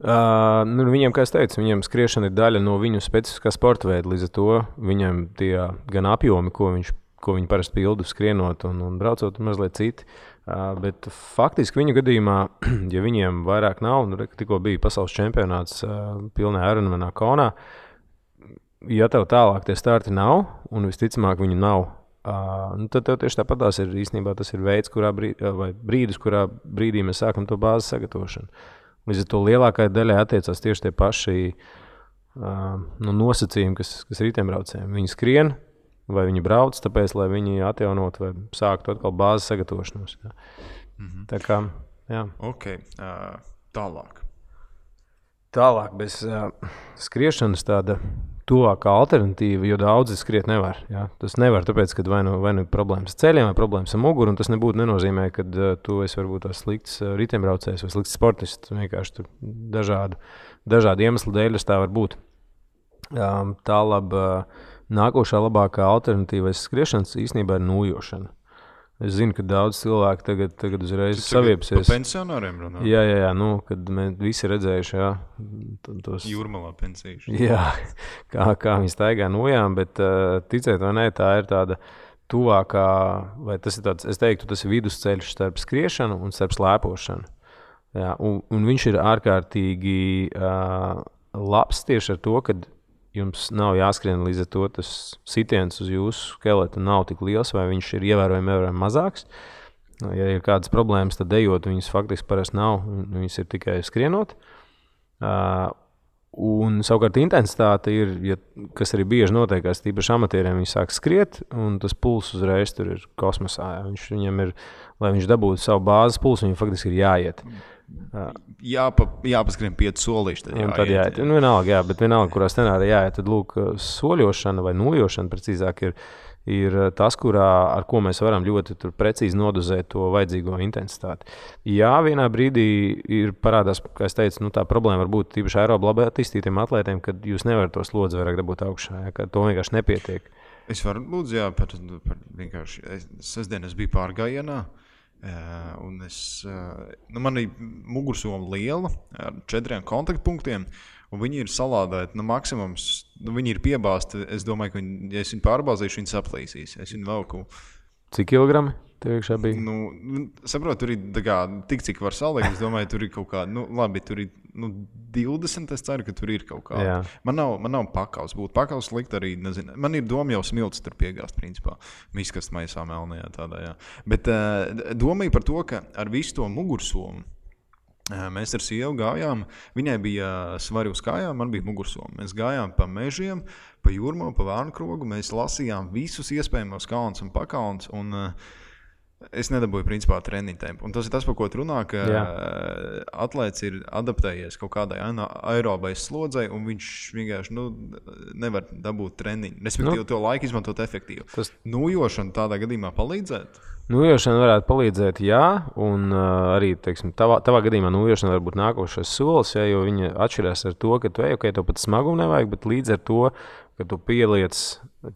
Speaker 3: Viņiem, kā es teicu, viņiem skriešana ir daļa no viņu specifiskā sporta veida, līdz ar to viņiem tie gan apjomi, ko viņi parasti pildu skrienot un braucot, mazliet citi. Bet faktiski viņu gadījumā, ja viņiem vairāk nav, tikko bija pasaules čempionāts pilnā Ironmanā Konā, ja tev tālāk tie starti nav, un visticamāk viņi nav, tad tev tieši tāpatās ir īstenībā tas ir veids, brīdis, kurā brīdī mēs sākam to bāzes sagatavošanu. Līdz ar to lielākajai daļai attiecās tieši tie paši nosacījumi, kas riteņbraucējiem. Viņi skrien, vai viņi brauc, tāpēc, lai viņi atjaunot vai sāktu atkal bāzes sagatavošanos. Jā.
Speaker 2: Mm-hmm.
Speaker 3: Tā kā, jā.
Speaker 2: Ok, tālāk.
Speaker 3: Tālāk bez skriešanas tāda tuvākā alternatīva, jo daudzi skriet nevar. Jā. Tas nevar, tāpēc, ka vai nu problēmas ar ceļiem, vai problēmas ar muguru, un tas nebūtu nenozīmē, ka tu esi varbūt tās slikts riteņbraucējs vai slikts sportists. Vienkārši tur dažādi iemesli dēļ tā var būt. Nākošā labākā alternatīva skriešanas īstenībā ir nūjošana. Es zinu, ka daudz cilvēku tagad uzreiz saviepsies.
Speaker 2: Par pensionāriem runā?
Speaker 3: Jā, kad mēs visi redzējuši, tos
Speaker 2: Jūrmalā pensīši.
Speaker 3: Jā, kā viņi staigā nojām, bet ticēt vai ne, tā ir tāda tuvākā, vai tas ir tāds, es teiktu, tas ir vidusceļš starp skriešanu un starp slēpošanu. Jā, un viņš ir ārkārtīgi labs tieši ar to, kad jums nav jāskrien līdz ar to, tas sitiens uz jūsu skeleta nav tik liels, vai viņš ir ievērojami mazāks. Ja ir kādas problēmas, tad ejot, viņas faktiski parasti nav, viņas ir tikai skrienot. Un savukārt intensitāte ir, kas arī bieži notiekās, tīpaši amatieriem, viņi sāk skriet, un tas puls uzreiz tur ir kosmosā. Viņam ir, lai viņš dabūtu savu bāzes pulsu, viņam faktiski ir jāiet.
Speaker 2: Jāpaskrien 5 solīši.
Speaker 3: Tad jāiet. Vienalga, bet vienalga, kurā scenārā jāiet, tad lūk, soļošana vai nojošana precīzāk ir tas, ar ko mēs varam ļoti precīzi nodozēt to vajadzīgo intensitāti. Jā, vienā brīdī ir parādās, kā es teicu, tā problēma var būt tīpaši aerobi labi attīstītiem atlētiem, kad jūs nevarat to slodzi vairāk dabūt augšā, ka to vienkārši nepietiek.
Speaker 2: Es varu lūdzu, par vienkārši, sestdien es biju pārgājienā, un man ir mugursoma liela ar 4 kontaktpunktiem, un viņi ir salādēti maksimums viņi ir piebāzti. Es domāju, ka ja es viņu pārbāzīšu, viņi saplīsīs. Es viņu velku.
Speaker 3: Cik kilogrami tev iekšā bija?
Speaker 2: Saprotu, tur ir tik, cik var salikt. Es domāju, tur ir kaut kāda, labi, tur ir 20. Es ceru, ka tur ir kaut kāda. Man nav pakaus. Būtu pakaus likt arī, nezinu. Man ir doma jau smilts tur piegāzt, principā. Miskast maisā melnajā tādā, jā. Bet domāju par to, ka ar visu to mugursomu mēs ar sievu gājām. Viņai bija svari uz kājām, man bija mugursoma. Mēs gājām pa mežiem, pa jūrmā, pa Vārnkrogu. Mēs lasījām visus iespējamos kalnus un pakalnus. Un es nedabūju principā treniņu tempu. Un tas ir tas, par ko tu runā, ka atlēts ir adaptējies kaut kādai aerobais slodzei, un viņš vienkārši nevar dabūt treniņu. Respektīvi, to laiku izmantot efektīvi. Nūjošana tādā gadījumā palīdzētu?
Speaker 3: Nūjošana varētu palīdzēt, jā, un arī, teiksim, tavā gadījumā nūjošana var būt nākošais solis, jo viņa atšķirās ar to, ka tu tev pat smagumu nevajag, bet līdz ar to, ka tu pieliec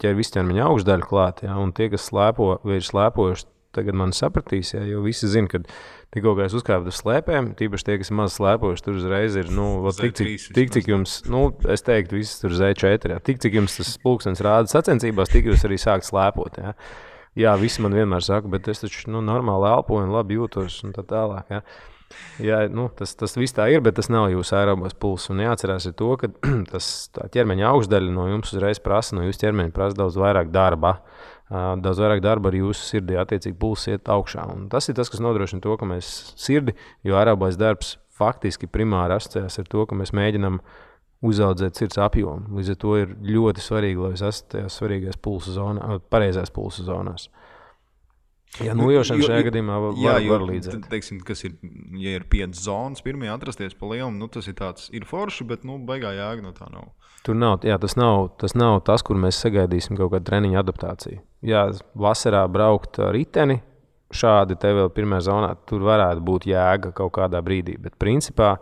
Speaker 3: ķer visķermeņa augšdaļu klāt, un tie, kas slēpo vai ir slēpojuši, tagad man sapratīs, jo visi zina, ka tikko es uzkāpu uz slēpēm, tīpaši tie, kas ir maz slēpojuši, tur uzreiz ir, tik cik jums, es teiktu, viss tur Z4, tik cik jums tas pulkstenis rāda sacensībās, tik jūs arī sākt slēpot, Jā, visi man vienmēr saka, bet es taču normāli elpoju un labi jūtos un tā tālāk. Jā, tas viss tā ir, bet tas nav jūsu aerobās pulss. Un jāatcerās ir to, ka tā ķermeņa augšdaļa no jums uzreiz prasa, no jūsu ķermeņa prasa daudz vairāk darba. Daudz vairāk darba ar jūsu sirdī, attiecīgi pulss iet augšā. Un tas ir tas, kas nodrošina to, ka mēs sirdi, jo aerobās darbs faktiski primāri asociējās ar to, ka mēs mēģinām uzaudzēt sirds apjomu. Līdz ar to ir ļoti svarīgi, lai es esmu tajās svarīgās pulsa zonās, pareizās pulsa zonās. Ja nūjošana šajā gadījumā var līdzēt.
Speaker 2: Teiksim, kas ir, ja ir 5 zonas, pirmajā atrasties pa lielumu, tas ir tāds, ir forši, bet baigā jēga no tā nav.
Speaker 3: Tur nav, tas nav tas, kur mēs sagaidīsim kaut kādu treniņu adaptāciju. Jā, vasarā braukt riteni, šādi te vēl pirmajā zonā, tur varētu būt jēga kaut kādā brīdī, bet principā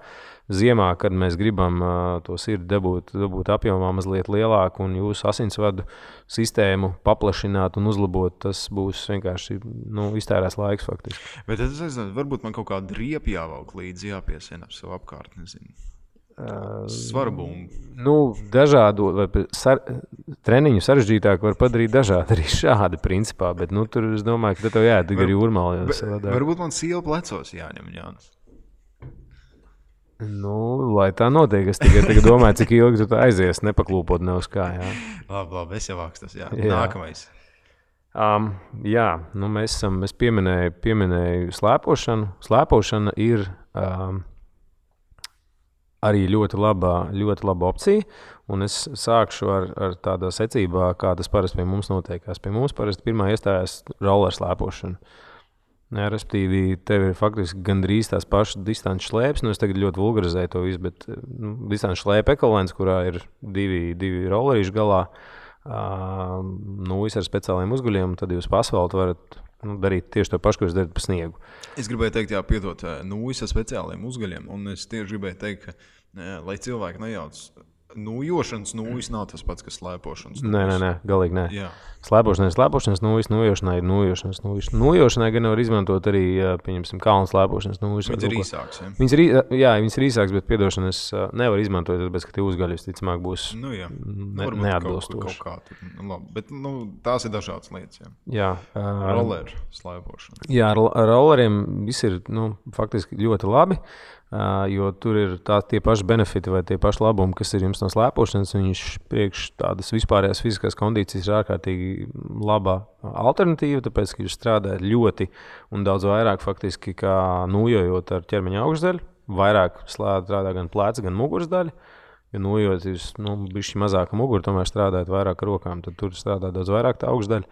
Speaker 3: ziemā, kad mēs gribam to sirdi dabūt apjomā mazliet lielāku un jūsu asinsvadu sistēmu paplašināt un uzlabot, tas būs vienkārši iztērēs laiks faktiski.
Speaker 2: Bet es nezinu, varbūt man kaut kāda riepa jāvelk līdzi jāpiesien ap savu apkārt, nezinu. Svarbumbu.
Speaker 3: Dažādu treniņu sarežģītāk var padarīt dažādi arī šādi principā, bet tur es domāju, ka tev jāiet ar jūrmāli.
Speaker 2: Varbūt man siela plecos jāņem, Jānis.
Speaker 3: Lai tā notiek, es tikai domāju, cik ilgi tu aizies, nepaklūpot ne uz kā.
Speaker 2: Labi, es jau vākstas, jā. Nākamais.
Speaker 3: Es pieminēju slēpošanu. Slēpošana ir arī ļoti laba opcija, un es sākšu ar tādā secībā, kā tas parasti pie mums notiekās. Pie mums parasti pirmā iestājās roller slēpošana. Respektīvi, tev ir faktiski gandrīz tās pašas distances šlēpes. Es tagad ļoti vulgarizēju to visu, bet distances šlēpe ekvivalents, kurā ir divi rollerīši galā, ar speciāliem uzguļiem, tad jūs pa asfaltu varat darīt tieši to pašu, ko jūs darat pa sniegu.
Speaker 2: Es gribēju teikt, piedot nūjas ar speciāliem uzguļiem, un es tieši gribēju teikt, ka, lai cilvēki nejauc, nūjošanas nūjas nav tas pats, kas slēpošanas nūjas.
Speaker 3: Nē, galīgi nē. Jā. Slēpošanai ir slēpošanas nūjas, nūjošanai ir nūjošanas nūjas. Nūjošanai gan var izmantot arī, pieņemsim, kalnu slēpošanas nūjas.
Speaker 2: Viņas ir īsāks, ja?
Speaker 3: Viņas ir īsāks, bet piedošana es nevaru izmantot, tāpēc, ka tie uzgaļi visticamāk būs neatbilstoši.
Speaker 2: Kaut kā, bet tās ir dažādas lietas,
Speaker 3: jā.
Speaker 2: Roller slēpošana.
Speaker 3: Jā, ar rolleriem viss ir, faktiski ļoti labi. Jo tur ir tie paši benefiti vai tie paši labumi, kas ir jums no slēpošanas. Viņš priekš tādas vispārējās fiziskās kondīcijas ir ārkārtīgi laba alternatīva, tāpēc, ka jūs strādājat ļoti un daudz vairāk faktiski kā nūjojot ar ķermeņa augšdaļu. Vairāk strādā gan pleca, gan muguras daļa. Jo nūjojot jūs, bišķi mazāka mugura, tomēr strādājat vairāk ar rokām, tad tur strādā daudz vairāk tā augšdaļa.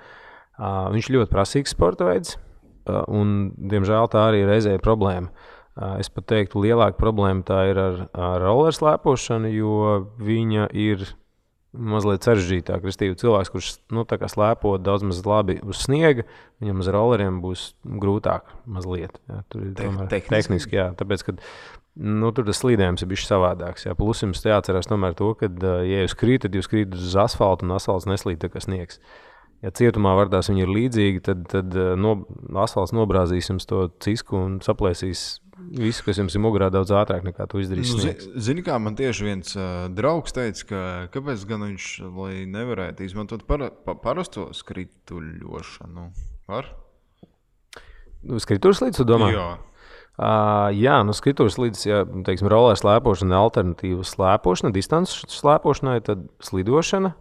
Speaker 3: Viņš ļoti prasīgs sporta veids un, diemžēl, tā arī reizē ir problēma. Es pat teiktu, lielāka problēma tā ir ar roller slēpošanu, jo viņa ir mazliet sarežģītāka. Restīvi, cilvēks, kurš tā kā slēpo daudz maz labi uz sniega, viņam uz rolleriem būs grūtāk mazliet. Jā, tur ir tehniski, jā, tāpēc, ka tur tas slīdējums ir bišķi savādāks. Jā. Plus jums jāatcerās tomēr to, ka, ja jūs krītat uz asfaltu un asfalts neslīd tā kā sniegs. Ja cietumā vardās viņi ir līdzīgi, tad asfalts nobrāzīs jums to cisku un saplēsīs visu, kas jums ir mugurā, daudz ātrāk nekā tu izdarīsi.
Speaker 2: Zini, kā man tieši viens draugs teica, kāpēc gan viņš, lai nevarētu izmantot parasto skrituļošanu? Var?
Speaker 3: Skrituļslīdes, tu domā?
Speaker 2: Jā.
Speaker 3: Jā, skrituļslīdes, ja, teiksim, roller slēpošana, alternatīva slēpošana, distances slēpošanai, tad slidošana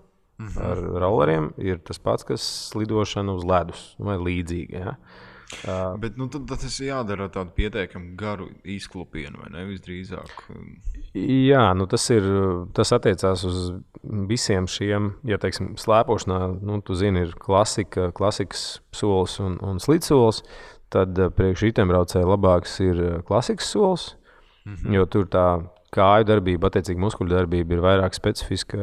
Speaker 3: ar rolleriem ir tas pats, kas slidošana uz ledus vai līdzīgi, ja.
Speaker 2: Bet tad tas ir jādara tādu pietiekami garu izklupienu, vai ne, visdrīzāk?
Speaker 3: Jā, tas attiecās uz visiem šiem, ja teiksim, slēpošanā, tu zini, ir klasikas solis un slidsolis, tad priekš riteņbraucēja labāks ir klasikas solis, jo tur tā kāju darbība, attiecīgi muskuļu darbība ir vairāk specifiska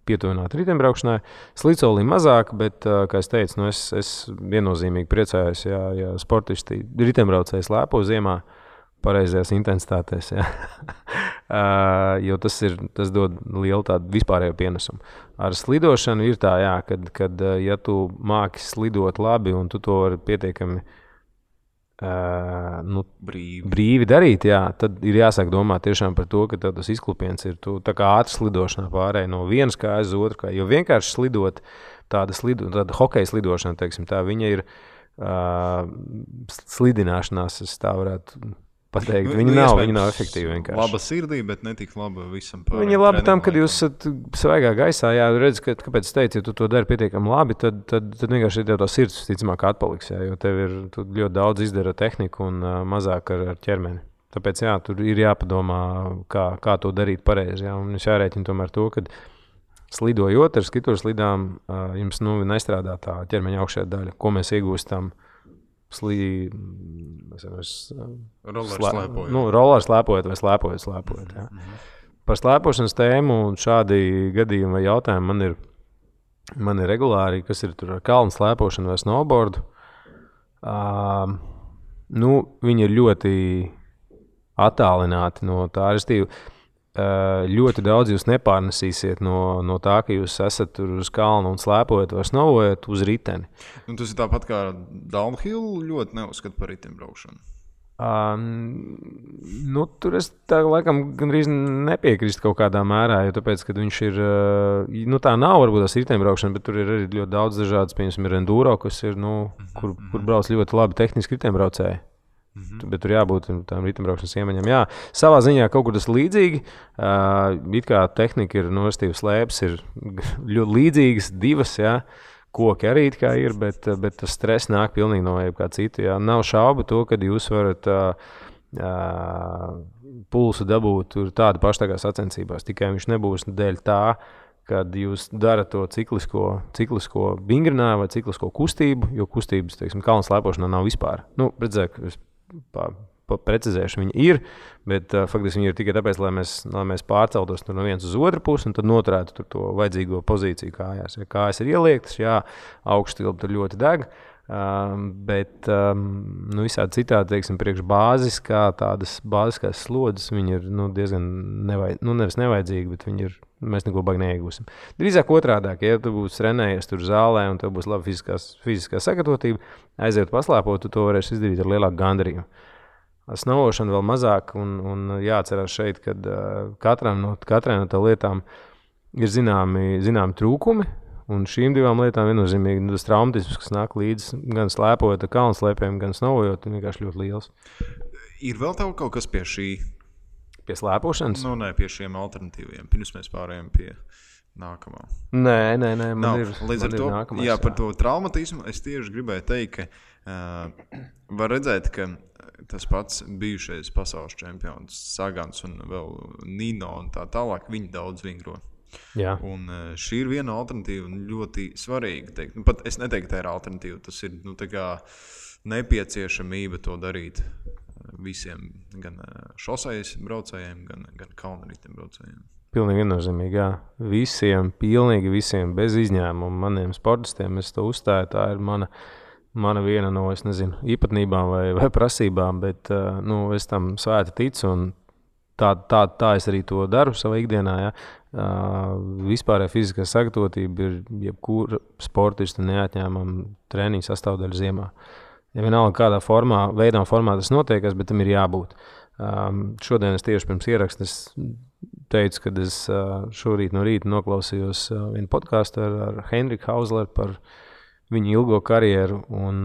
Speaker 3: pietuvināta riteņbraukšanai. Slidsolī mazāk, bet, kā es teicu, es viennozīmīgi priecājos, ja sportisti riteņbraucēji slēpo ziemā pareizajās intensitātēs, ja. Jo tas dod lielu tādu vispārējo pienesumu. Ar slidošanu ir tā, jā, kad ja tu māki slidot labi un tu to vari pietiekami brīvi darīt, jā, tad ir jāsāk domāt tiešām par to, ka tas izklupiens ir tā kā ātri slidošanā pārēj no vienas kājas uz otru kāju, jo vienkārši slidot tāda hokeja slidošana, teiksim, tā viņa ir slidināšanās, es tā varētu pateikt. Viņa nav efektīva vienkārši.
Speaker 2: Laba sirdī, bet ne tik laba visam pārējiem.
Speaker 3: Viņa ir laba tam, kad jūs esat svaigā gaisā, jā, redz, kāpēc es teicu, ja tu to dari pietiekami labi, tad vienkārši tev tā sirds ticamāk atpaliks, jā, jo tu ļoti daudz izdara tehniku un mazāk ar ķermeni. Tāpēc, jā, tur ir jāpadomā, kā to darīt pareizi, jā, un es jārēķina tomēr to, kad slidojot ar skrituļslidām, jums nestrādā tā ķermeņa augšējā daļa, ko mēs iegūstam roller slēpojot vai slēpojot. Jā. Par slēpošanas tēmu un šādi gadījumi vai jautājumi man ir regulāri, kas ir tur ar kalnu slēpošanu vai snowboardu. Viņi ir ļoti attālināti no tā, restīvi. Ļoti daudz jūs nepārnesīsiet no tā, ka jūs esat tur uz kalnu un slēpojat vai snowojat uz riteni.
Speaker 2: Tas ir tāpat kā downhill ļoti neuzskata par riteņbraukšanu.
Speaker 3: Tur es tā laikam gandrīz nepiekrīstu kaut kādā mērā, jo tāpēc, kad viņš ir, tā nav varbūt tās riteņbraukšana, bet tur ir arī ļoti daudz dažādas, piemēram, ir enduro, kas ir, kur brauc ļoti labi tehniski riteņbraucēji. Bet tur jābūt tām riteņbraukšanas iemaņām. Jā, savā ziņā kaut kur tas līdzīgi. It kā tehnika ir nostīvas slēpes, ir ļoti līdzīgas divas, jā. Koki arī it kā ir, bet tas stress nāk pilnīgi no jebkā citu. Jā. Nav šaubu to, kad jūs varat pulsu dabūt tur tādu pašu tā kā sacensībās. Tikai viņš nebūs dēļ tā, kad jūs darat to ciklisko vingrinājumu vai ciklisko kustību, jo kustības, teiksim, kalnu slēpošanā nav vispār. Precizēšu, viņi ir, bet faktiski viņi ir tikai tāpēc, lai mēs pārceltos no vienas uz otru pusi un tad noturētu tur to vajadzīgo pozīciju kājās. Ja kājas ir ieliektas, jā, augšstilpa tur ļoti deg, bet visādi citādi, teiksim, priekš tādas bāziskās slodzes, viņi ir diezgan nevis nevajadzīgi, bet viņi ir, mēs neko baigi neiegūsim. Drīzāk otrādāk, ja tu būsi trenējies tur zālē un tev būs laba fiziskā sagatavotība, aiziet paslēpot, tu to varēsi izdarīt ar lielāku gandarījumu. Snowbošana vēl mazāk un jāatcerās šeit, kad katrai no tā lietām ir zināmi trūkumi, un šīm divām lietām viennozīmīgi tas traumatisms, kas nāk līdzi gan slēpojot ar kalnu slēpēm, gan snowojot, ir vienkārši ļoti liels.
Speaker 2: Ir vēl tev kaut kas pie šī?
Speaker 3: Pie slēpošanas?
Speaker 2: Nē, pie šiem alternatīviem. Pirms mēs pārējām pie nākamā.
Speaker 3: Nē, man ir
Speaker 2: nākamais. Jā, par to traumatismu es tieši gribēju teikt, ka var redzēt, ka tas pats bijušais pasaules čempions Sagans un vēl Nino un tā tālāk, viņi daudz vingro.
Speaker 3: Jā.
Speaker 2: Un šī ir viena alternatīva ļoti svarīga. Teikt. Pat es neteiktu, tā ir alternatīva. Tas ir tā kā nepieciešamība to darīt visiem, gan šosejas braucējiem, gan kalnriteņu braucējiem.
Speaker 3: Pilnīgi viennozīmīgi, jā. Pilnīgi visiem, bez izņēmuma maniem sportistiem, es to uzstāju, tā ir mana viena no, es nezinu, īpatnībām vai prasībām, bet es tam svēti ticu un tā es arī to daru savā ikdienā. Ja. Vispārējā fiziskā sagatavotība ir jebkura sportista neatņēmama treniņa sastāvdaļa ziemā. Ja vienalga kādā veidā un formā tas notiekas, bet tam ir jābūt. Šodien es tieši pirms ieraksta teicu, ka es šorīt no rīta noklausījos vienu podcastu ar Henriku Hausleru par viņu ilgo karjeru, un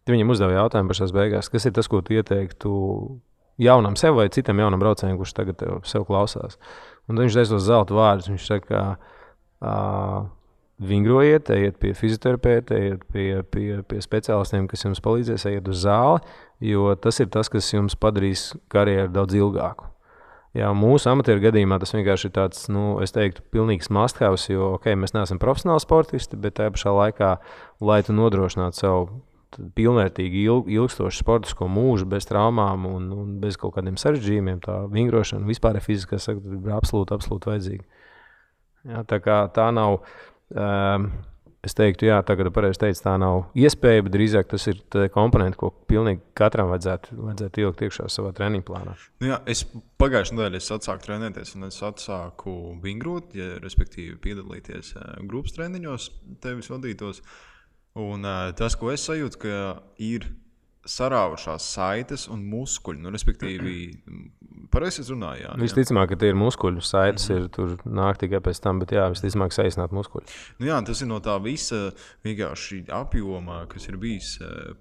Speaker 3: viņam uzdeva jautājumu pašās beigās, kas ir tas, ko tu ieteiktu jaunam sev vai citam jaunam braucējiem, kurš tagad sev klausās. Un viņš teica tos zelta vārdus, viņš saka, vingrojiet, ejiet pie fizioterapeita, ejiet pie speciālistiem, kas jums palīdzēs, ejiet uz zāli, jo tas ir tas, kas jums padarīs karjeru daudz ilgāku. Jā, mūsu amatieru gadījumā tas vienkārši ir tāds, es teiktu, pilnīgs must-have, jo, mēs neesam profesionāli sportisti, bet tajā pašā laikā, lai tu nodrošinātu savu pilnvērtīgi ilgstošu sportisko mūžu bez traumām un bez kaut kādiem sarežģījumiem, tā vingrošana vispār ir fiziskā sakta, ir absolūti vajadzīga. Jā, tā kā tā nav, es teiktu, jā, tagad pareizi teicu, tā nav iespēja, bet drīzāk tas ir komponenti, ko pilnīgi katram vajadzētu ielikt iekšā savā treniņu plānā.
Speaker 2: Jā, es pagājušajā nedēļā atsāku trenēties un es atsāku vingrot, respektīvi piedalīties grupas treniņos, tevis vadītos. Un tas, ko es sajūtu, ka ir sarāvušās saites un muskuļi, respektīvi, pareizi es runāju, jā.
Speaker 3: Visticamāk, ka tie ir muskuļi, saites ir tur nāk tikai pēc tam, bet jā, visticamāk saīsināt muskuļi.
Speaker 2: Jā, tas ir no tā visa vienkārši apjoma, kas ir bijis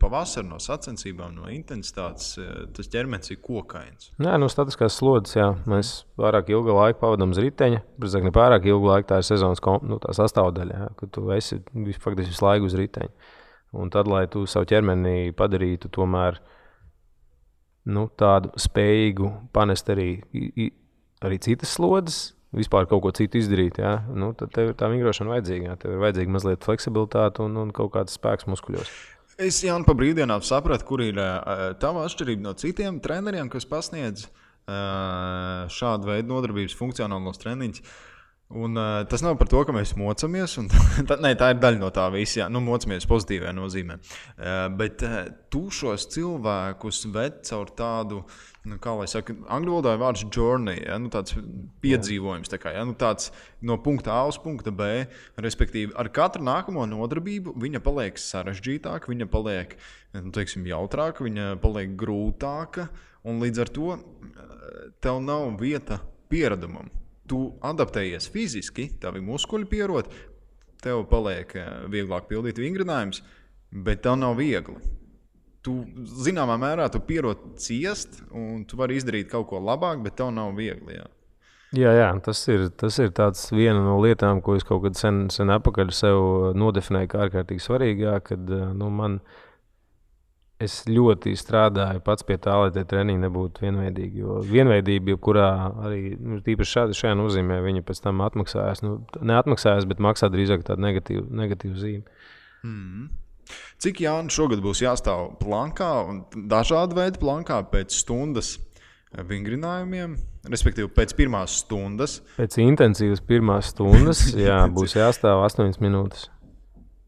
Speaker 2: pavasar, no sacensībām, no intensitātes, tas ķermenis ir kokains.
Speaker 3: Jā, no statiskās slodzes, jā, mēs pārāk ilgu laiku pavadām uz riteņa, bet ne pārāk ilgu laiku tā ir sezonas tā sastāvdaļa, jā, ka tu esi faktiski visu laiku uz riteņa. Un tad, lai tu savu ķermeni padarītu tomēr tādu spējīgu panest arī citas slodzes, vispār kaut ko citu izdarīt, jā, tad tev ir tā vingrošana vajadzīga. Jā. Tev ir vajadzīga mazliet fleksibilitāte un kaut kāds spēks muskuļos.
Speaker 2: Es, Jāni, pa brīvdienām sapratu, kur ir tava atšķirība no citiem treneriem, kas pasniedz šādu veidu nodarbības funkcionālos treniņus. Un tas nav par to, ka mēs mocamies, tā ir daļa no tā visa, mocamies pozitīvajā nozīmē. Bet tu šos cilvēkus ved caur tādu, kā lai saka, angļu valodā ir vārds journey, ja, tāds piedzīvojums, tāds no punkta A uz punkta B, respektīvi ar katru nākamo nodarbību viņa paliek sarežģītāka, viņa paliek, jautrāka, viņa paliek grūtāka, un līdz ar to tev nav vieta pieredumam. Tu adaptējies fiziski, tavi muskuļi pierod, tev paliek vieglāk pildīt vingrinājumus, bet tev nav viegli. Tu, zināmā mērā, tu pierod ciest, un tu vari izdarīt kaut ko labāk, bet tev nav viegli. Jā.
Speaker 3: Jā, tas ir tāds viena no lietām, ko es kaut kad sen apakaļ sev nodefinēju kā ārkārtīgi svarīgā, kad es ļoti strādāju pats pie tā, lai tie treniņi nebūtu vienveidīgi. Jo vienveidība, kurā arī tīpaši šajā nozīmē, viņa pēc tam atmaksājas. Neatmaksājas, bet maksā drīzāk tādu negatīvu zīmi.
Speaker 2: Cik, Jāni, šogad būs jāstāv plankā un dažādu veidu plankā pēc stundas vingrinājumiem, respektīvi pēc pirmās stundas?
Speaker 3: Pēc intensīvas pirmās stundas, jā, būs jāstāv 8 minūtes.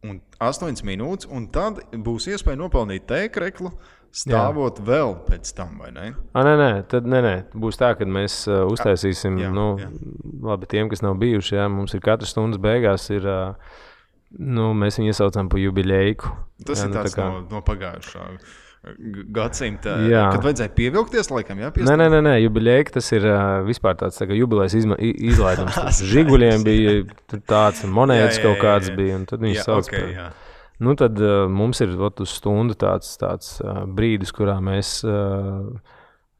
Speaker 2: Un 8 minūtes, un tad būs iespēja nopelnīt tēkreklu, stāvot vēl pēc tam, vai ne?
Speaker 3: Nē. Būs tā, ka mēs uztaisīsim, labi, tiem, kas nav bijuši, jā, mums ir katras stundas beigās ir, mēs viņu iesaucam pa jubiļeiku.
Speaker 2: Tas
Speaker 3: jā,
Speaker 2: ir tāds no pagājušā gadsimta,
Speaker 3: jā.
Speaker 2: Kad vajadzēja pievilkties, laikam, jā?
Speaker 3: Nē, jubiļeika, tas ir vispār tāds jubilejas izlaidums. Žiguļiem bija tāds, monētas kaut kāds bija, un tad viņi sauc par. Tad mums ir uz stundu tāds brīdis, kurā mēs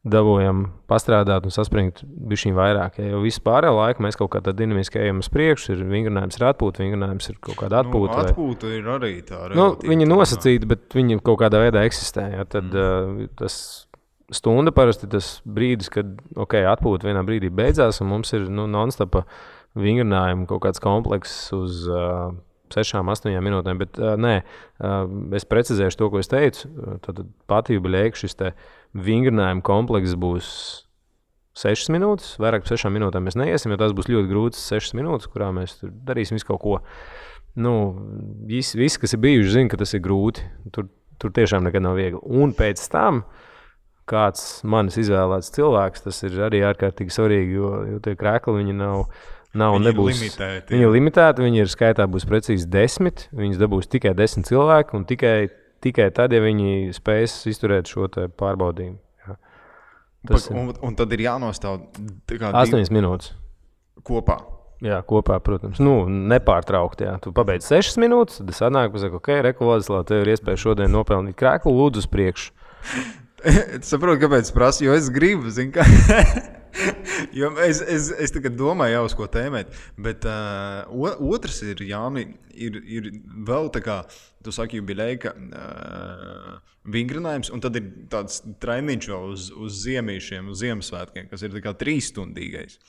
Speaker 3: dabūjam pastrādāt un saspringt bišķiņ vairāk. Ja, jo visu pārējo laiku mēs kaut kā tā dinamiski ejam uz priekšu, vingrinājums ir atpūta, vingrinājums ir kaut kāda atpūta.
Speaker 2: Atpūta ir arī tā relatīva.
Speaker 3: Viņa nosacīta, bet viņa kaut kādā veidā eksistē. Ja, tad tas stunda parasti tas brīdis, kad atpūta vienā brīdī beidzās, un mums ir non-stopa vingrinājuma kaut kāds komplekss uz 6-8 minūtēm, bet es precizēšu to, ko es teicu. Tad pati jubiļeika šis te vingrinājuma komplekss būs 6 minūtes, vairāk par 6 minūtēm mēs neiesim, jo tās būs ļoti grūtas 6 minūtes, kurā mēs tur darīsim visu kaut ko. Visi, kas ir bijuši, zina, ka tas ir grūti. Tur tiešām nekad nav viegli. Un pēc tam kāds manis izvēlēts cilvēks, tas ir arī ārkārtīgi svarīgi, jo tie krekli viņi nav nebūs. Viņi ir limitēti, viņi ir skaitā būs precīzi 10, viņas dabūs tikai 10 cilvēki un tikai tikai tad, ja viņi spēs izturēt šo pārbaudījumu. Jā.
Speaker 2: Un tad ir jānostāv
Speaker 3: 8 minūtes.
Speaker 2: Kopā.
Speaker 3: Jā, kopā, protams. Nepārtraukt, jā. Tu pabeidz 6 minūtes, tad sanāk, pasaka, ok, Reku Vladislav, tev ir iespēja šodien nopelnīt krēklu, lūdzu uz priekšu.
Speaker 2: Es saprotu, kāpēc es prasu, jo es gribu, zinu, kā. Jo es tagad domāju jau uz ko tēmēt, bet otrs ir, Jāni, ir vēl tā kā, tu saki, jubileja vingrinājums, un tad ir tāds treniņš vēl uz ziemīšiem, uz Ziemassvētkiem, kas ir tā kā 3-stundīgais.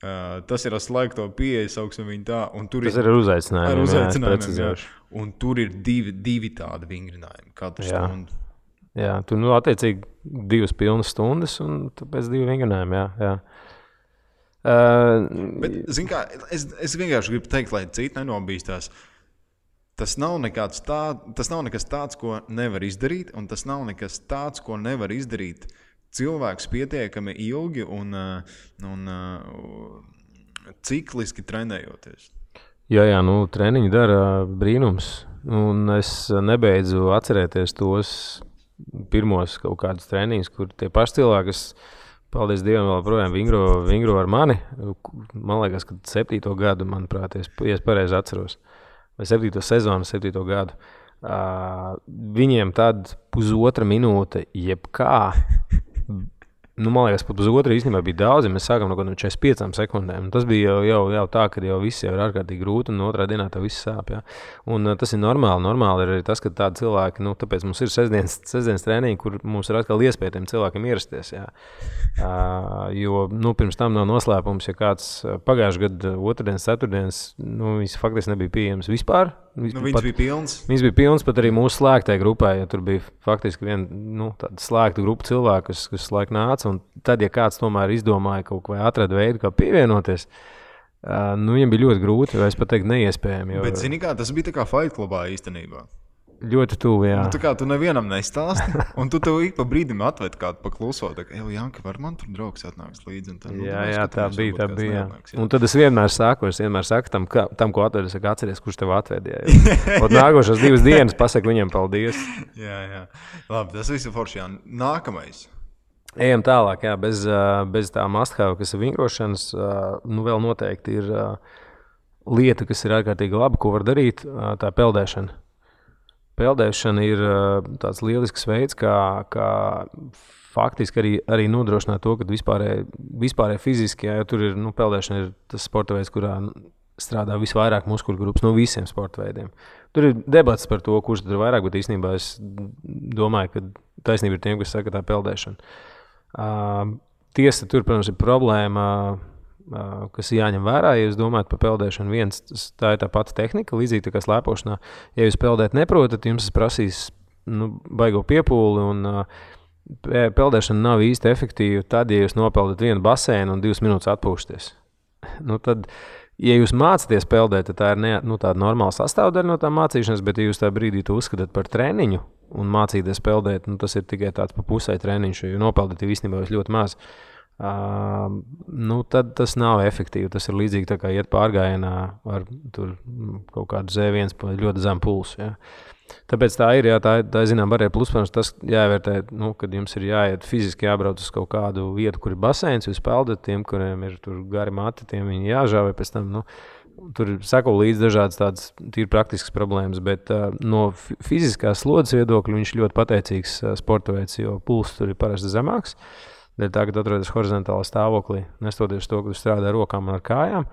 Speaker 2: Tas ir ar slēgto pieeju, sauksim viņu tā.
Speaker 3: Tas ir ar uzaicinājumiem,
Speaker 2: jā. Un tur ir divi tādi vingrinājumi katru stundu.
Speaker 3: Jā, tu attiecīgi 2 pilnas stundas un pēc 2 vingrinājumi, jā.
Speaker 2: Bet, zin kā, es vienkārši gribu teikt, lai citi nenobīstās. Tas nav nekas tāds, ko nevar izdarīt, un tas nav nekas tāds, ko nevar izdarīt cilvēks pietiekami ilgi un cikliski trenējoties.
Speaker 3: Jā, treniņi dara brīnums, un es nebeidzu atcerēties tos pirmos kaut kādus treniņus, kur tie paši cilvēki, kas, paldies Dievam, vēl projām vingro ar mani. Man liekas, ka 7. gadu, manuprāt, ja es pareizi atceros, vai 7. sezonu, 7. gadu. Viņiem tad 1,5 minūte jebkā, man liekas, pat 1,5 īstenībā bija daudz, ja mēs sākam no 45 sekundēm. Tas bija jau tā, ka jau viss jau ir ārkārtīgi grūti, un otrā dienā tev viss sāp. Jā. Un tas ir normāli. Normāli ir arī tas, ka tādi cilvēki, tāpēc mums ir sestdienas treniņi, kur mums ir atkal iespēja tiem cilvēkiem ierasties. Jā. Jo pirms tam nav noslēpums, ja kāds pagājušajā gadu otrdienas, ceturtdienas, viņš faktiski nebija pieejams vispār.
Speaker 2: Viņas bija pilns.
Speaker 3: Viņas bija pilns pat arī mūsu slēgtajai grupai, ja tur bija faktiski viena tāda slēgta grupa cilvēku, kas laik nāca, un tad, ja kāds tomēr izdomāja kaut ko vai atrada veidu, kā pievienoties, viņam bija ļoti grūti, vai es pat teiktu neiespējami.
Speaker 2: Bet zini kā, tas bija tā kā Fight Clubā īstenībā.
Speaker 3: Ļoti tuvu, jā.
Speaker 2: Tā kā tu nevienam nestāsti, un tu tev ik pa brīdim atved kādu pakluso, tā kā, Janka, var man tur draugs atnāks līdzi? Un tad,
Speaker 3: jā, tā bija. Un tad es vienmēr saku tam, ko atved, es saku, atceries, kurš tev atvedīja. Un nākošās 2 dienas pasaku viņam paldies.
Speaker 2: Jā. Labi, tas viss ir forši, jā. Nākamais.
Speaker 3: Ejam tālāk, jā, bez tā must-have, kas ir vingrošanas, vēl noteikti ir lieta, kas ir ārkārtīgi laba, ko var darīt, tā peldēšana. Peldēšana ir tāds lielisks veids, kā faktiski arī nodrošināt to, ka vispārēji fiziski, jo tur ir, peldēšana ir tas sporta veids, kurā strādā visvairāk muskuļu grupas no visiem sporta veidiem. Tur ir debats par to, kurš tur ir vairāk, bet īstenībā es domāju, ka taisnība ir tiem, kas saka, tā peldēšana. Tiesa, tur, protams, ir problēma, kas jāņem vērā, ja jūs domājat par peldēšanu. Tā ir tā pati tehnika, līdzīgi tā kā slēpošanā. Ja jūs peldēt neprotat, jums prasīs baigo piepūli, un peldēšana nav īsti efektīva tad, ja jūs nopeldat vienu baseinu un 2 minūtes atpūšaties. Tad, ja jūs mācāties peldēt, tad tā ir tāda normāla sastāvdaļa no tā mācīšanas, bet ja jūs tā brīdī to uzskatāt par treniņu un mācīties peldēt, tas ir tikai tāds pa pusē treniņš, jo nopeldēt īstenībā jūs ļoti maz. Tad tas nav efektīvi. Tas ir līdzīgi tā kā iet pārgājienā ar tur kaut kādu Z1 ļoti zemu pulsu. Jā. Tāpēc tā ir, jā, tā zinām, arī plus, protams, tas jāvērtē, kad jums ir jāiet fiziski jābrauc uz kaut kādu vietu, kur ir baseins, jūs peldat tiem, kuriem ir tur gari mati, tiem viņi jāžāvē pēc tam, tur sako līdz dažādas tādas tīri praktiskas problēmas, bet no fiziskās slodzes viedokļa viņš ļoti pateicīgs sporta veids, jo pulss tur ir parasti zemāks. Dēļ tā, kad atrodas horizontālā stāvoklī, nestoties to, ka tu strādā ar rokām un ar kājām,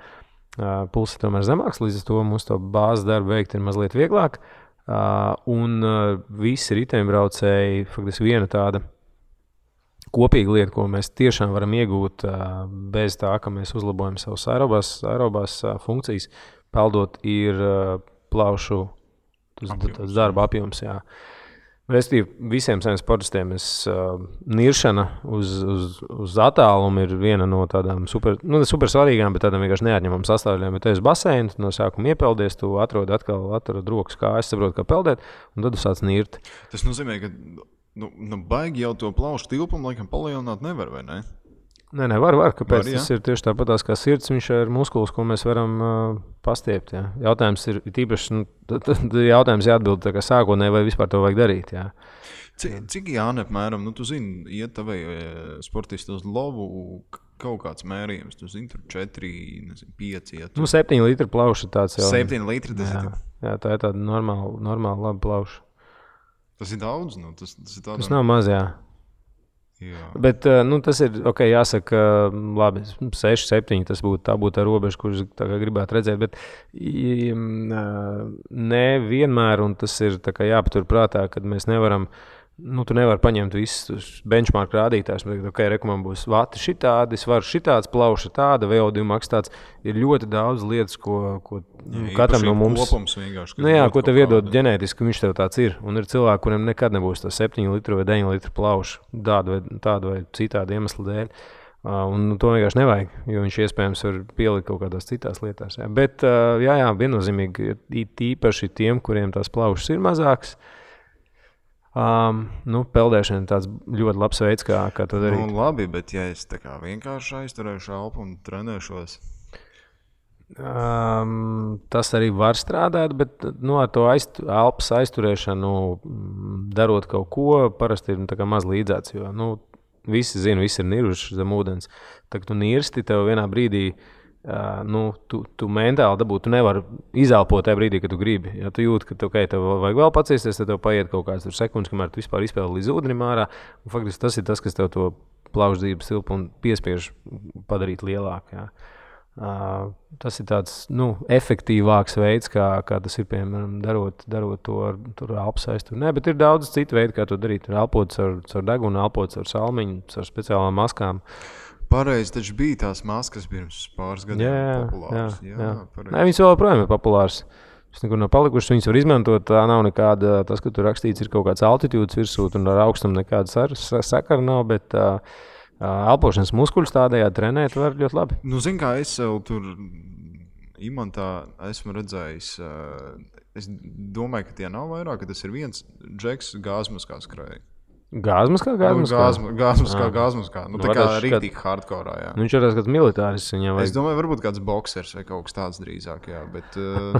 Speaker 3: pulss ir tomēr zemāks, līdz ar to mums to bāzes darbu veikt ir mazliet vieglāk. Un visi riteņbraucēji, faktiski viena tāda kopīga lieta, ko mēs tiešām varam iegūt bez tā, ka mēs uzlabojam savus aerobās funkcijas, peldot ir plaušu darba apjoms, jā. Restīvi, visiem saviem sportistiem niršana uz attālumu ir viena no tādām super svarīgām, bet tādām vienkārši neatņemam sastāvdaļām. Ja tev ir baseini, no sākuma iepeldies, tu atrod rokas kājas, saproti, kā peldēt, un tad tu sāc nirt.
Speaker 2: Tas nozīmē, ka baigi jau to plaušu tilpumu laikam palielināt nevar, vai ne?
Speaker 3: Nē, var. Kāpēc? Tas ir tieši tāpatās kā sirds, viņš ir muskulis, ko mēs varam pastiept. Jā. Jautājums ir tīpaši, jautājums jāatbild tā kā sākotnēji, vai vispār to vajag darīt. Jā.
Speaker 2: Cik Jāni apmēram, tu zini, iet tavai sportisti uz lovu kaut kāds mērījums, tu zini, tur 4, 5 iet.
Speaker 3: 7 litri plauša tāds jau.
Speaker 2: 7 litri tas ir?
Speaker 3: Jā, tā ir tāda normāla laba plauša.
Speaker 2: Tas ir daudz, tas ir tādā...
Speaker 3: Tas nav maz, jā. Jā. Bet tas ir jāsaka, labi, 6, 7. Tas būtu tā robeža, kurus gribētu redzēt. Bet ne vienmēr, un tas ir jāpatur prātā, kad mēs nevaram. Tu nevari paņemt visus benchmark rādītājus. Man būs vati šitādi, es varu šitāds, plauša tāda, VO2 maks tāds. Ir ļoti daudz lietas, ko katram no mums...
Speaker 2: Kopums vienkārši.
Speaker 3: Ko tev iedod ģenētiski, viņš tev tāds ir. Un ir cilvēki, kuriem nekad nebūs tā 7 litru vai 9 litru plauša tādu vai citādu iemeslu dēļ. Un to vienkārši nevajag, jo viņš iespējams var pielikt kaut kādās citās lietās. Jā. Bet viennozīmīgi īpaši tiem, kuriem tās plaušas ir mazākas, peldēšana ir tāds ļoti labs veids, kā to darīt.
Speaker 2: Labi, bet ja es tā kā vienkārši aizturēšu elpu un trenēšos?
Speaker 3: Tas arī var strādāt, bet ar to elpas aizturēšanu, darot kaut ko, parasti ir tā kā maz līdzēts, jo visi zina, visi ir niruši zem ūdens. Tad, tu nirsti, tev vienā brīdī tu mentāli dabū, tu nevari izelpot tajā brīdī, kad tu gribi. Ja tu jūti, ka tev vajag vēl paciesties, tad tev paiet kaut kāds sekundes, kamēr tu vispār izpēli līdz ūdenim ārā. Faktiski tas ir tas, kas tev to plaušu dzīves tilpu un piespiež padarīt lielāku. Ja. Tas ir tāds efektīvāks veids, kā tas ir, piemēram, darot to ar elpas aizturu. Nē, bet ir daudz citu veidu, kā to darīt. Elpot caur degunu, elpot caur salmiņu, caur speciālām maskām.
Speaker 2: Pareizi, taču bija tās maskas pirms pāris gadiem populāras. Jā.
Speaker 3: Nē, viņas vēl joprojām ir populāras. Tas nekur nav palikušas, viņas var izmantot. Tā nav nekāda, tas, ka tur rakstīts, ir kaut kāds altitūdas virsū, un ar augstumu nekāda sakara nav, bet elpošanas muskuļus tādējādi trenēt var ļoti labi.
Speaker 2: Zin kā, es sev tur imantā esmu redzējis, es domāju, ka tie nav vairāk, ka tas ir viens džeks gāzmaskā skrēja.
Speaker 3: Gāzmaskā?
Speaker 2: Gāzmaskā. Tā kā rīktīgi hardcore, jā.
Speaker 3: Viņš ir kāds militāris.
Speaker 2: Es domāju, varbūt kāds boksers vai kaut kas tāds drīzāk, jā. Bet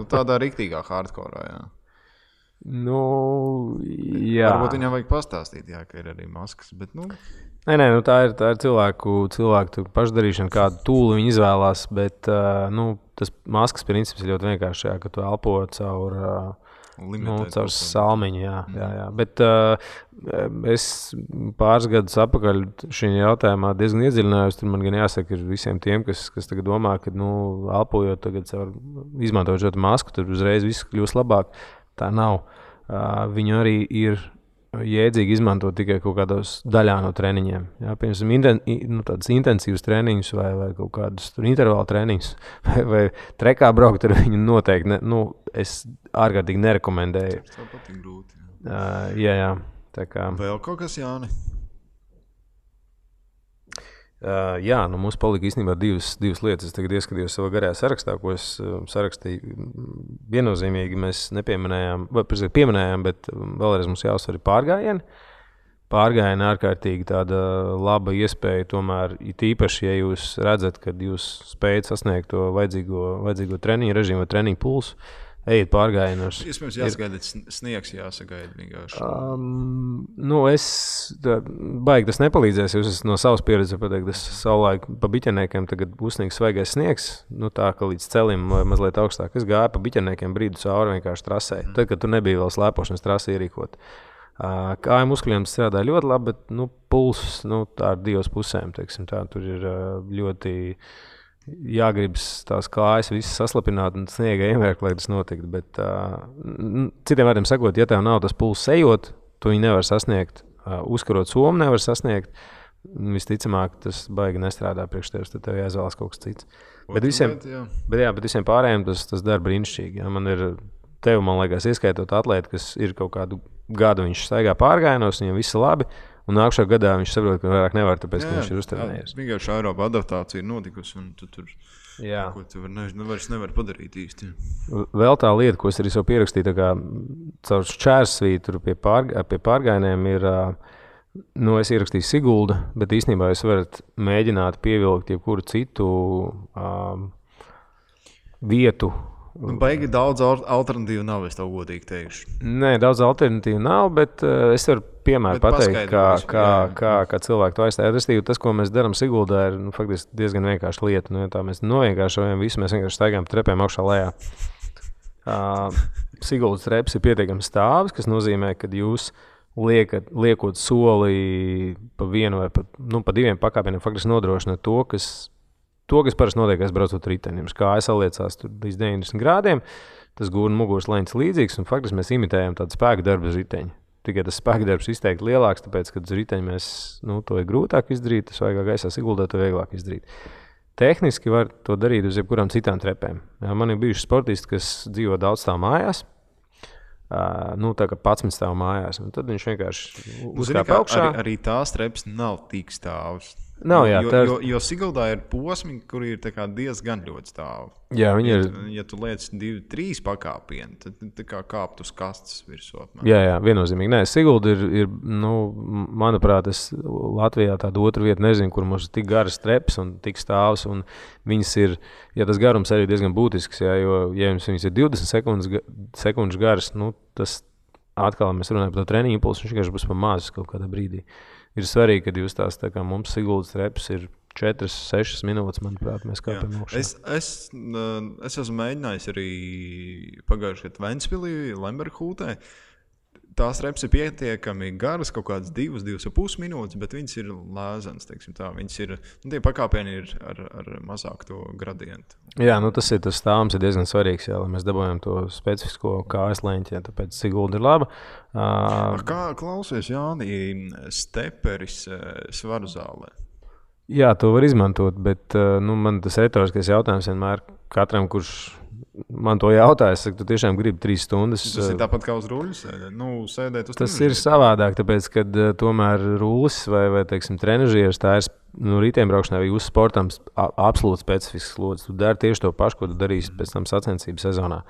Speaker 2: tādā rīktīgā hardcore, jā.
Speaker 3: Jā.
Speaker 2: Varbūt viņam vajag pastāstīt, jā, ka ir arī maskas, bet
Speaker 3: Nē, tā ir cilvēku pašdarīšana, kādu tūli viņi izvēlās, bet tas maskas princips ir ļoti vienkārši, jā, ka tu elpo caur salmiņu, jā. Bet es pāris gadus atpakaļ šajā jautājumā diezgan iedziļinājos. Tur man gan jāsaka, ir visiem tiem, kas tagad domā, ka elpojot tagad izmantojot šo masku, tad uzreiz viss kļūs labāk. Tā nav. Viņu arī ir jēdzīgi izmantot tikai kaut kādos daļā no treniņiem. Jā, piemēram, tādas intensīvas treniņus vai kaut kādus intervālu treniņus vai trekā braukt ar viņu noteikti. Es ārkārtīgi nerekomendēju.
Speaker 2: Tas tev patīk grūti.
Speaker 3: Jā. Tā kā...
Speaker 2: Vēl kaut kas, Jāni?
Speaker 3: Jā, mums palika īstenībā divas lietas. Es tagad ieskatījos savā garajā sarakstā, ko es sarakstīju. Viennozīmīgi mēs nepieminējām, vai pieminējām, bet vēlreiz mums jāuzsver pārgājieni. Pārgājieni ārkārtīgi tāda laba iespēja, tomēr īpaši, ja jūs redzat, kad jūs spējat sasniegt to vajadzīgo treniņu režīmu vai treniņu pulsu, ejiet pārgājienos.
Speaker 2: Iespējams, jāsagaida sniegs, jāsagaida vienkārši.
Speaker 3: Baigi tas nepalīdzēs, jo es no savas pieredzes pateikt, es savulaik pa biķeniekiem tagad uzsniegs svaigais sniegs, tā ka līdz celim vai mazliet augstāk. Es gāju pa biķeniekiem brīdu cauri vienkārši trasē. Tad, kad tu nebija vēl slēpošanas trasi ierīkot. Kāju muskuļiem strādā ļoti labi, bet pulss, tā ar divas pusēm, teiksim, tā tur ir ļoti... jāgribas tās kājas visas saslapināt un sniega iemērkt, lai tas notiktu. Bet, citiem vārdiem sakot, ja tev nav tas pulss ejot, tu viņu nevar sasniegt. Uzkarot somu nevar sasniegt. Visticamāk, tas baigi nestrādā priekš tevis, tad tev jāizvēlas kaut kas cits. Bet visiem pārējiem tas dara brīnišķīgi. Ja? Man ir tev, man liekas, ieskaitot atlēti, kas ir kaut kādu gadu viņš staigā pārgājienos, viņam viss labi. Un nākšā gadā viņš saprot, ka vairāk nevar, tāpēc, ka viņš ir uztrenējies.
Speaker 2: Vienkārši aeroba adaptācija ir notikusi, un tu tur ko tu vairs nevar padarīt īsti.
Speaker 3: Vēl tā lieta, ko es arī savu pierakstīju, tā kā caur šķērsvītru pie pārgājieniem ir Es ierakstīju Sigulda, bet īstenībā jūs varat mēģināt pievilkt jebkuru citu vietu.
Speaker 2: Baigi daudz alternatīvu nav, es tev godīgi teikšu.
Speaker 3: Nē, daudz alternatīvu nav, bet es varu piemēru pateikt, kā cilvēki to aizstāja. Restīvi, tas, ko mēs darām Siguldā, ir faktiski diezgan vienkārša lieta. Ja tā mēs novienkāršojam visu, mēs vienkārši staigājam trepēm augšā lejā. Siguldas treps ir pietiekami stāvs, kas nozīmē, ka jūs liekot soli pa vienu vai pa diviem pakāpieniem, faktiski nodrošina to, kas parasti notiek, braucot riteni. Jums kāja saliecās līdz 90 grādiem, tas gūna muguras leņķis līdzīgs, un faktiski mēs imitējam tādu spēku darbu uz riteņa. Tikai tas spēka darbs izteikti lielāks, tāpēc, kad uz riteņa mēs, to ir grūtāk izdarīt, tas vajag gaisā Siguldā, to vieglāk izdarīt. Tehniski var to darīt uz jebkurām citām trepēm. Man ir bijuši sportisti, kas dzīvo daudz stāv mājās, tā kā 11 stāv mājās, un tad viņš vienkārši uzkāpa augšā.
Speaker 2: Arī tās trepas nav tik stāvs.
Speaker 3: Nav, jā,
Speaker 2: jo Siguldā ir posmi, kur ir diezgan ļoti stāvi.
Speaker 3: Jā,
Speaker 2: Ja tu liec 2-3 pakāpieni, tad tā kā kāpt uz kastes virsū.
Speaker 3: Jā, viennozīmīgi. Nē, Sigulda ir manuprāt, es Latvijā tādu otru vietu nezinu, kur mums ir tik garas trepas un tik stāvs, un viņas ir, tas garums arī diezgan būtisks, jo, ja viņas ir 20 sekundžu garas, tas atkal mēs runājam par to treniņu impulsu, viņš vienkārši būs pa mazus kaut kādā brīdī. Ir svarīgi, kad jūs tās, tā kā mums Siguldas trepas ir 4-6 minūtes, manuprāt, mēs kāpjam augšā.
Speaker 2: Es esmu mēģinājis arī pagājušajā gadā Ventspilī, Lemberhūtē. Tās trepas ir pietiekami garas, kaut kādas 2-2,5 minūtes, bet viņas ir lēzenas, teiksim tā. Viņas ir, tie pakāpieni ir ar mazāk to gradientu.
Speaker 3: Jā, tas stāvums ir diezgan svarīgs, lai mēs dabūjam to specifisko kājas leņķi, tāpēc Sigulda ir laba.
Speaker 2: Kā klausies, Jāni, steperis svaru zālē?
Speaker 3: Jā, to var izmantot, bet man tas retoriskais jautājums vienmēr katram, kurš man to jautā, es saku, tu tiešām gribi 3 stundas.
Speaker 2: Tas ir tāpat kā uz rulles sēdēt uz
Speaker 3: tas ir savādāk, tāpēc, kad tomēr rulles vai teiksim, trenažieris, tā ir riteņbraukšanā vai uz sportam absolūti specifisks slodzes. Tu dari tieši to pašu, ko tu darīsi pēc tam sacensību sezonā.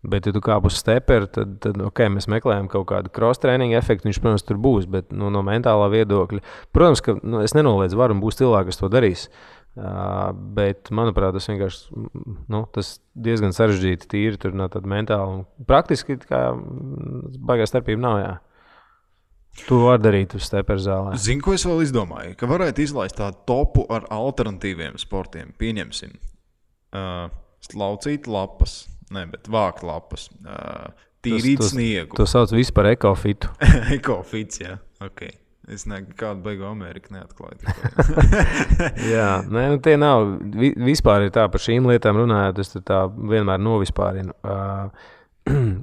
Speaker 3: Bet, ja tu kāp uz steperu, tad mēs meklējam kaut kādu cross-training efektu, viņš, protams, tur būs, bet no mentālā viedokļa. Protams, ka es nenoliedzu varu un būs cilvēki, kas to darīs. Bet, manuprāt, tas vienkārši tas diezgan sarežģīti tīri tur no tāda mentāla un praktiski baigā starpība nav, jā. Tu vari darīt uz steperu zālē.
Speaker 2: Zini, ko es vēl izdomāju? Ka varētu izlaist tādu topu ar alternatīviem sportiem. Pieņemsim laucīt lapas, bet vākt lapas, tīrīt sniegu.
Speaker 3: To sauc visu par ekofitu.
Speaker 2: Ekofits, jā, ok. Es nekādu beigu Ameriku neatklāju.
Speaker 3: Jā, tie nav. Vispār ir tā par šīm lietām runājot, es tā vienmēr novispārinu.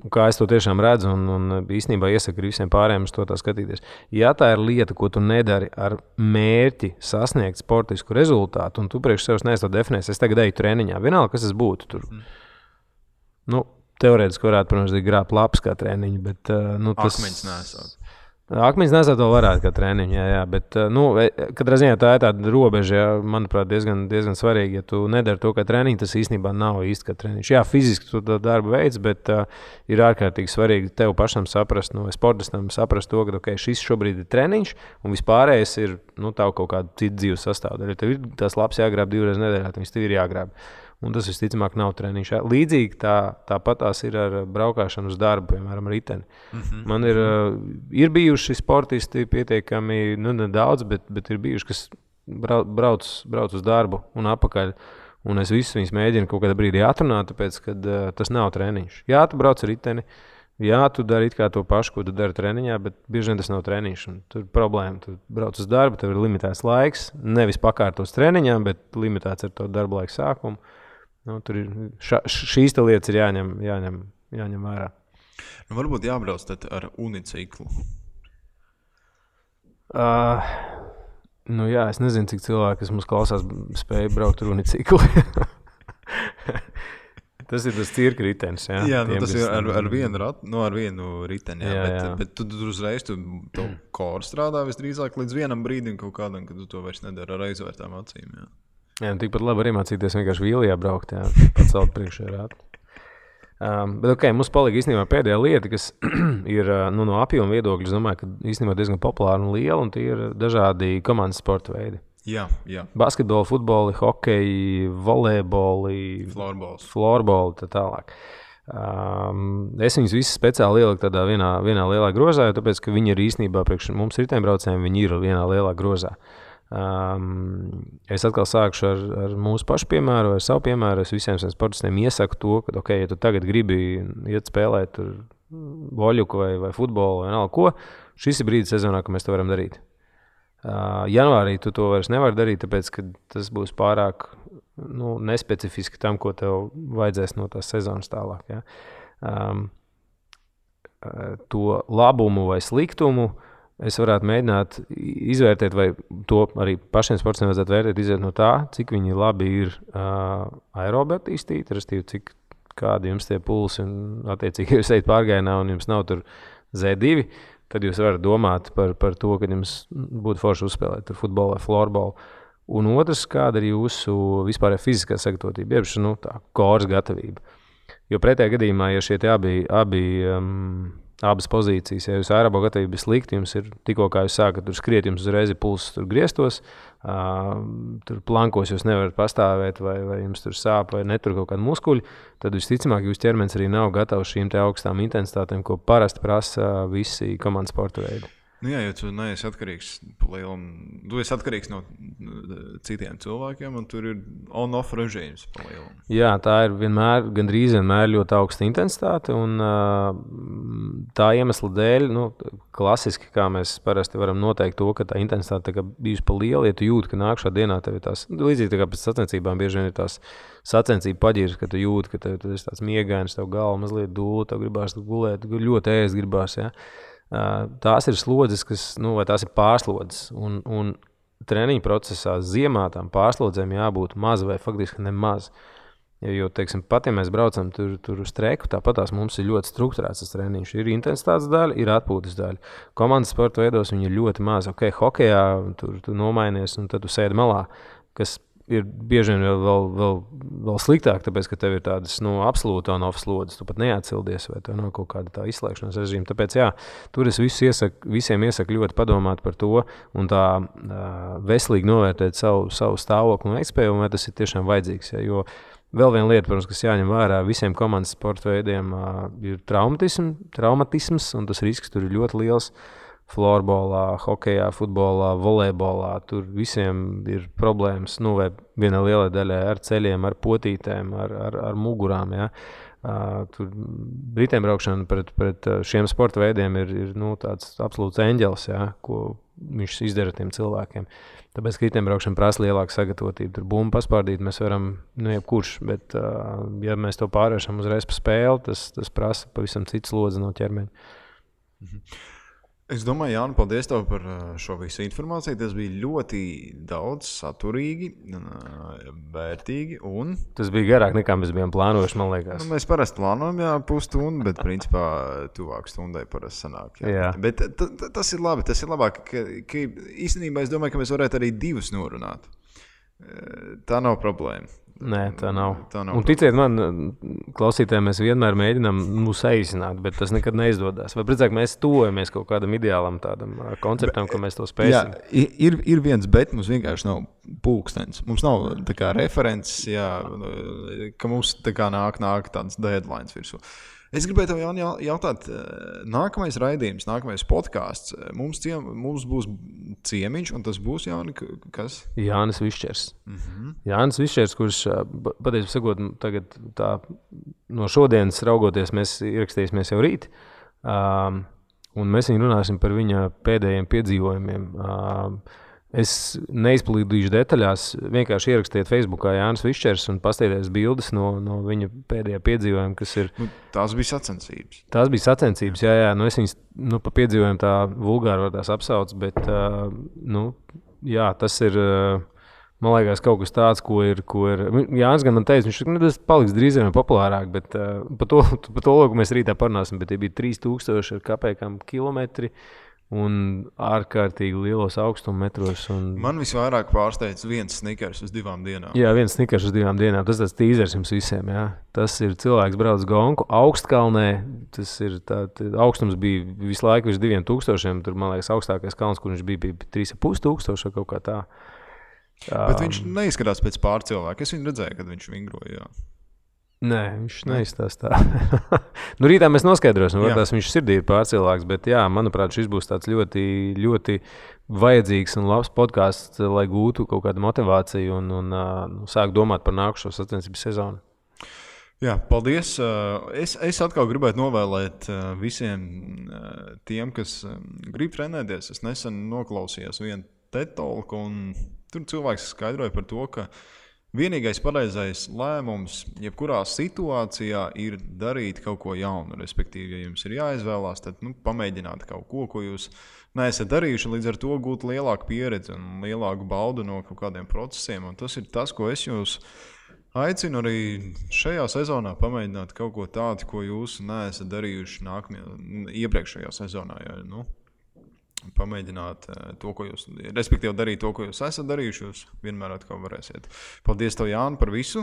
Speaker 3: Kā es to tiešām redzu un īstenībā iesaku visiem pārējiem uz to tā skatīties. Ja tā ir lieta, ko tu nedari ar mērķi sasniegt sportisku rezultātu, un tu priekš sevis neesi to definējis, es tagad eju treniņā, vienalga, kas tas būtu tur. Teorētiski varētu, protams, grābt lapas kā treniņu, bet tas...
Speaker 2: Akmeņus nesāt.
Speaker 3: Akmeņus nesāt vēl varētu kā treniņu, jā, bet katrā ziņā tā ir tāda robeža, manuprāt, diezgan svarīga. Ja tu nedari to kā treniņu, tas īstenībā nav īsti kā treniņš. Jā, fiziski tu to darbu veids, bet ir ārkārtīgi svarīgi tev pašam saprast, sportistam saprast to, ka šis šobrīd ir treniņš, un vispārējais ir tavu kaut kādu citu dzīves sastāvdaļu. Tev ir tās lapas jāgrāb 2 reizes nedēļā, viņas tev ir jāgrāb. Un tas visticamāk nav treniņš. Līdzīgi tāpat tās ir ar braukšanu uz darbu, piemēram, riteni. Man ir bijuši sportisti pietiekami, nedaudz, bet ir bijuši, kas brauc uz darbu un atpakaļ. Un es visus viņus mēģinu kaut kādā brīdī atrunāt, tāpēc, ka tas nav treniņš. Jā, tu brauc ar riteni, jā, tu dari it kā to pašu, ko tu dari treniņā, bet bieži vien tas nav treniņš. Tur ir problēma. Tu brauc uz darbu, tev ir limitēts laiks, nevis pakārtos treniņām, bet limitēts ar to darba laika sākumu. Tur ir šīs lietas ir jāņem vērā.
Speaker 2: Varbūt jābrauc tad ar uniciklu.
Speaker 3: Jā, es nezinu, cik cilvēki, kas mums klausās, spēja braukt ar uniciklu. Tas ir tas cirka ritenis.
Speaker 2: Jā, tas ir ar vienu riteni. Bet tu uzreiz to koru strādā visdrīzāk līdz vienam brīdim kaut kādam, kad tu to vairs nedari ar aizvērtām acīm. Jā,
Speaker 3: tikpat labi arī mācīties vienkārši vīlijā braukt, pacelt priekšējā rātu. Bet mums palika īstenībā pēdējā lieta, kas ir no apjoma viedokļa, es domāju, ka īstenībā diezgan populāra un liela, un tie ir dažādi komandas sporta veidi.
Speaker 2: Jā.
Speaker 3: Basketboli, futboli, hokeji, volejboli, florboli, tā tālāk. Es viņus visus speciāli ieliku tādā vienā lielā grozā, jo tāpēc, ka viņi ir īstenībā priekš mums riteņbraucējiem, viņi ir vienā lielā grozā. Es atkal sākšu ar mūsu pašu piemēru, ar savu piemēru. Es visiem sportistiem iesaku to, ka, ja tu tagad gribi iet spēlēt voļuku vai futbolu vai vienalga ko, šis ir brīdis sezonā, ka mēs to varam darīt. Janvārī tu to vairs nevari darīt, tāpēc, ka tas būs pārāk nespecifiski tam, ko tev vajadzēs no tās sezonas tālāk. Ja? To labumu vai sliktumu es varētu mēģināt izvērtēt, vai to arī pašiem sportistiem vajadzētu vērtēt, izvērtēt no tā, cik viņi labi ir aerobi attīstīti, respektīvi, kādi jums tie pulsi un attiecīgi jūs ejat pārgājienā un jums nav tur Z2, tad jūs varat domāt par to, ka jums būtu forši uzspēlēt tur futbolu vai florbolu. Un otrs, kāda ir jūsu vispārējā fiziskā sagatavotība, jeb tā koras gatavība. Jo pretējā gadījumā, ja šie abas pozīcijas, ja jūs aerobo gatavība ir slikti, jums ir tikko kā jūs sākat tur skriet, jums uzreiz ir pulss tur griestos, tur plankos jūs nevarat pastāvēt vai jums tur sāp vai netur kaut kādi muskuļi, tad visticamāk jūs ķermenis arī nav gatavs šīm te augstām intensitātēm, ko parasti prasa visi komandas sporta veidi.
Speaker 2: Jā, jo tu neesi atkarīgs tu esi atkarīgs no citiem cilvēkiem, un tur ir on-off režīms pa lielam.
Speaker 3: Jā, tā ir gandrīz vienmēr ļoti augsta intensitāte, un tā iemesla dēļ, klasiski, kā mēs parasti varam noteikt to, ka tā intensitāte bijusi pa liela, ja tu jūti, ka nākšā dienā tev ir tās, līdzīgi tā kā pēc sacensībām bieži vien ir tās sacensību paģiras, ka tu jūti, ka tev ir tāds miegains, tev galva mazliet dūla, tev gribās gulēt, ļoti ēst gribās, ja. Tās ir slodzes, vai tās ir pārslodzes, un treniņu procesā ziemā tām pārslodzēm jābūt maz vai faktiski nemaz. Jo, teiksim, pat ja mēs braucam tur uz treku, tāpat tās mums ir ļoti strukturēts tas treniņš. Ir intensitātes daļa, ir atpūtas daļa. Komandas sporta veidos viņi ir ļoti maz. Hokejā tu nomainies un tad tu sēdi malā, kas ir bieži vien vēl sliktāk, tāpēc, ka tev ir tādas absolūti on-off slodzes, tu pat neatsildies, vai tev nav kaut kāda tā izslēgšanas režīma. Tāpēc, tur es visiem iesaku ļoti padomāt par to un tā veselīgi novērtēt savu stāvokli un veiktspēju, un vai tas ir tiešām vajadzīgs. Ja? Jo vēl viena lieta, protams, kas jāņem vērā, visiem komandas sporta veidiem ir traumatisms, un tas risks tur ir ļoti liels. Florbolā, hokejā, futbolā, volejbolā, tur visiem ir problēmas, vai vienā lielā daļā ar ceļiem, ar potītēm, ar mugurām, ja. Tur riteņbraukšana pret šiem sporta veidiem ir tāds absolūts eņģelis, ja, ko viņš izdara tiem cilvēkiem. Tāpēc, ka riteņbraukšana prasa lielāku sagatavotību. Tur bumbu paspārdīt mēs varam, jebkurš, bet ja mēs to pārvēršam uzreiz pa spēli, tas prasa pavisam citu slodzi no ķermeņa.
Speaker 2: Es domāju, Jāni, paldies tev par šo visu informāciju. Tas bija ļoti daudz saturīgi, vērtīgi un...
Speaker 3: Tas bija garāk nekā mēs bijām plānojuši, man liekas.
Speaker 2: Mēs parasti plānojam, pusstundu, bet principā tuvāk stundai parasti sanāk.
Speaker 3: Jā.
Speaker 2: Bet tas ir labi, tas ir labāk, ka īstenībā es domāju, ka mēs varētu arī 2 norunāt. Tā nav problēma.
Speaker 3: Nē, tā nav. Un ticiet man, klausītājiem, mēs vienmēr mēģinām saīsināt, bet tas nekad neizdodas. Vai precīzāk mēs tuvojamies kaut kādam ideālam tādam konceptam, ka mēs to spēsim?
Speaker 2: Jā, ir viens, bet mums vienkārši nav pulkstenis. Mums nav tā kā references, ka mums tā kā nāk tāds deadlines virsū. Es gribēju tev, Jāni, jautāt, nākamais raidījums, nākamais podcasts, mums būs ciemiņš, un tas būs, Jāni, kas?
Speaker 3: Jānis Višķers. Jānis Višķers, kurš, patiesībā sakot, tagad tā, no šodienas raugoties, mēs ierakstīsimies jau rīt, un mēs viņu runāsim par viņa pēdējiem piedzīvojumiem. Es neizplīdīšu detaļās, vienkārši ierakstiet Facebookā Jānis Višķers un pastieties bildes no viņa pēdējā piedzīvojuma, kas ir...
Speaker 2: Tās bija sacensības.
Speaker 3: Tās bija sacensības, jā. Es viņas pa piedzīvojumu tā vulgāri var tās apsauc, bet, tas ir, man liekas, kaut kas tāds, ko ir Jānis gan man teica, viņš tas paliks drīz vien populārāk, bet par to, ko mēs rītā parunāsim, bet tie bija 3000 ar kapēkām kilometri, un ārkārtīgi lielos augstummetros.
Speaker 2: Man visvairāk pārsteidz viens snikers uz 2 dienām.
Speaker 3: Jā, viens snikers uz 2 dienām. Tas tāds tīzers jums visiem. Jā. Tas ir cilvēks brauc gonku augstkalnē. Tas ir augstums bija visu laiku virs 2000. Tur, man liekas, augstākais kalns, kur viņš bija 3500 kaut kā tā.
Speaker 2: Bet viņš neizskatās pēc pārcilvēka. Es viņu redzēju, kad viņš vingroja.
Speaker 3: Nē, viņš neizstās tā. Nu, rītā mēs noskaidrosim, varbūt viņš sirdī ir pārcilvēks, bet jā, manuprāt, šis būs tāds ļoti, ļoti vajadzīgs un labs podcasts, lai gūtu kaut kādu motivāciju un sāk domāt par nākušo sacensību sezonu.
Speaker 2: Jā, paldies. Es atkal gribētu novēlēt visiem tiem, kas grib trenēties. Es nesen noklausījos vienu TED-talku, un tur cilvēks skaidroja par to, ka vienīgais pareizais lēmums jebkurā situācijā ir darīt kaut ko jaunu. Respektīvi, ja jums ir jāizvēlās, tad pamēģināt kaut ko jūs neesat darījuši, līdz ar to gūt lielāku pieredzi un lielāku baudu no kaut kādiem procesiem. Un tas ir tas, ko es jūs aicinu arī šajā sezonā pamēģināt kaut ko tādu, ko jūs neesat darījuši iepriekšējā sezonā. Ja, pamēģināt to, ko jūs, respektīvi darīt to, ko jūs esat darījuši, jūs vienmēr atkal varēsiet. Paldies tev, Jāni, par visu.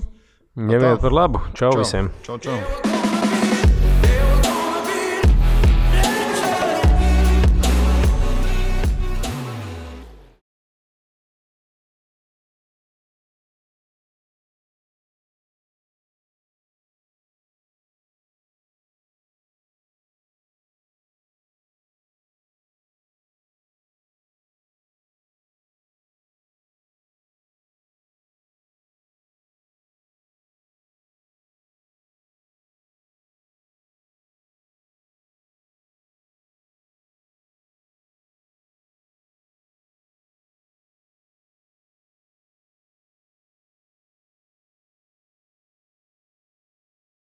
Speaker 3: Ņemiet par labu. Čau visiem.
Speaker 2: Čau.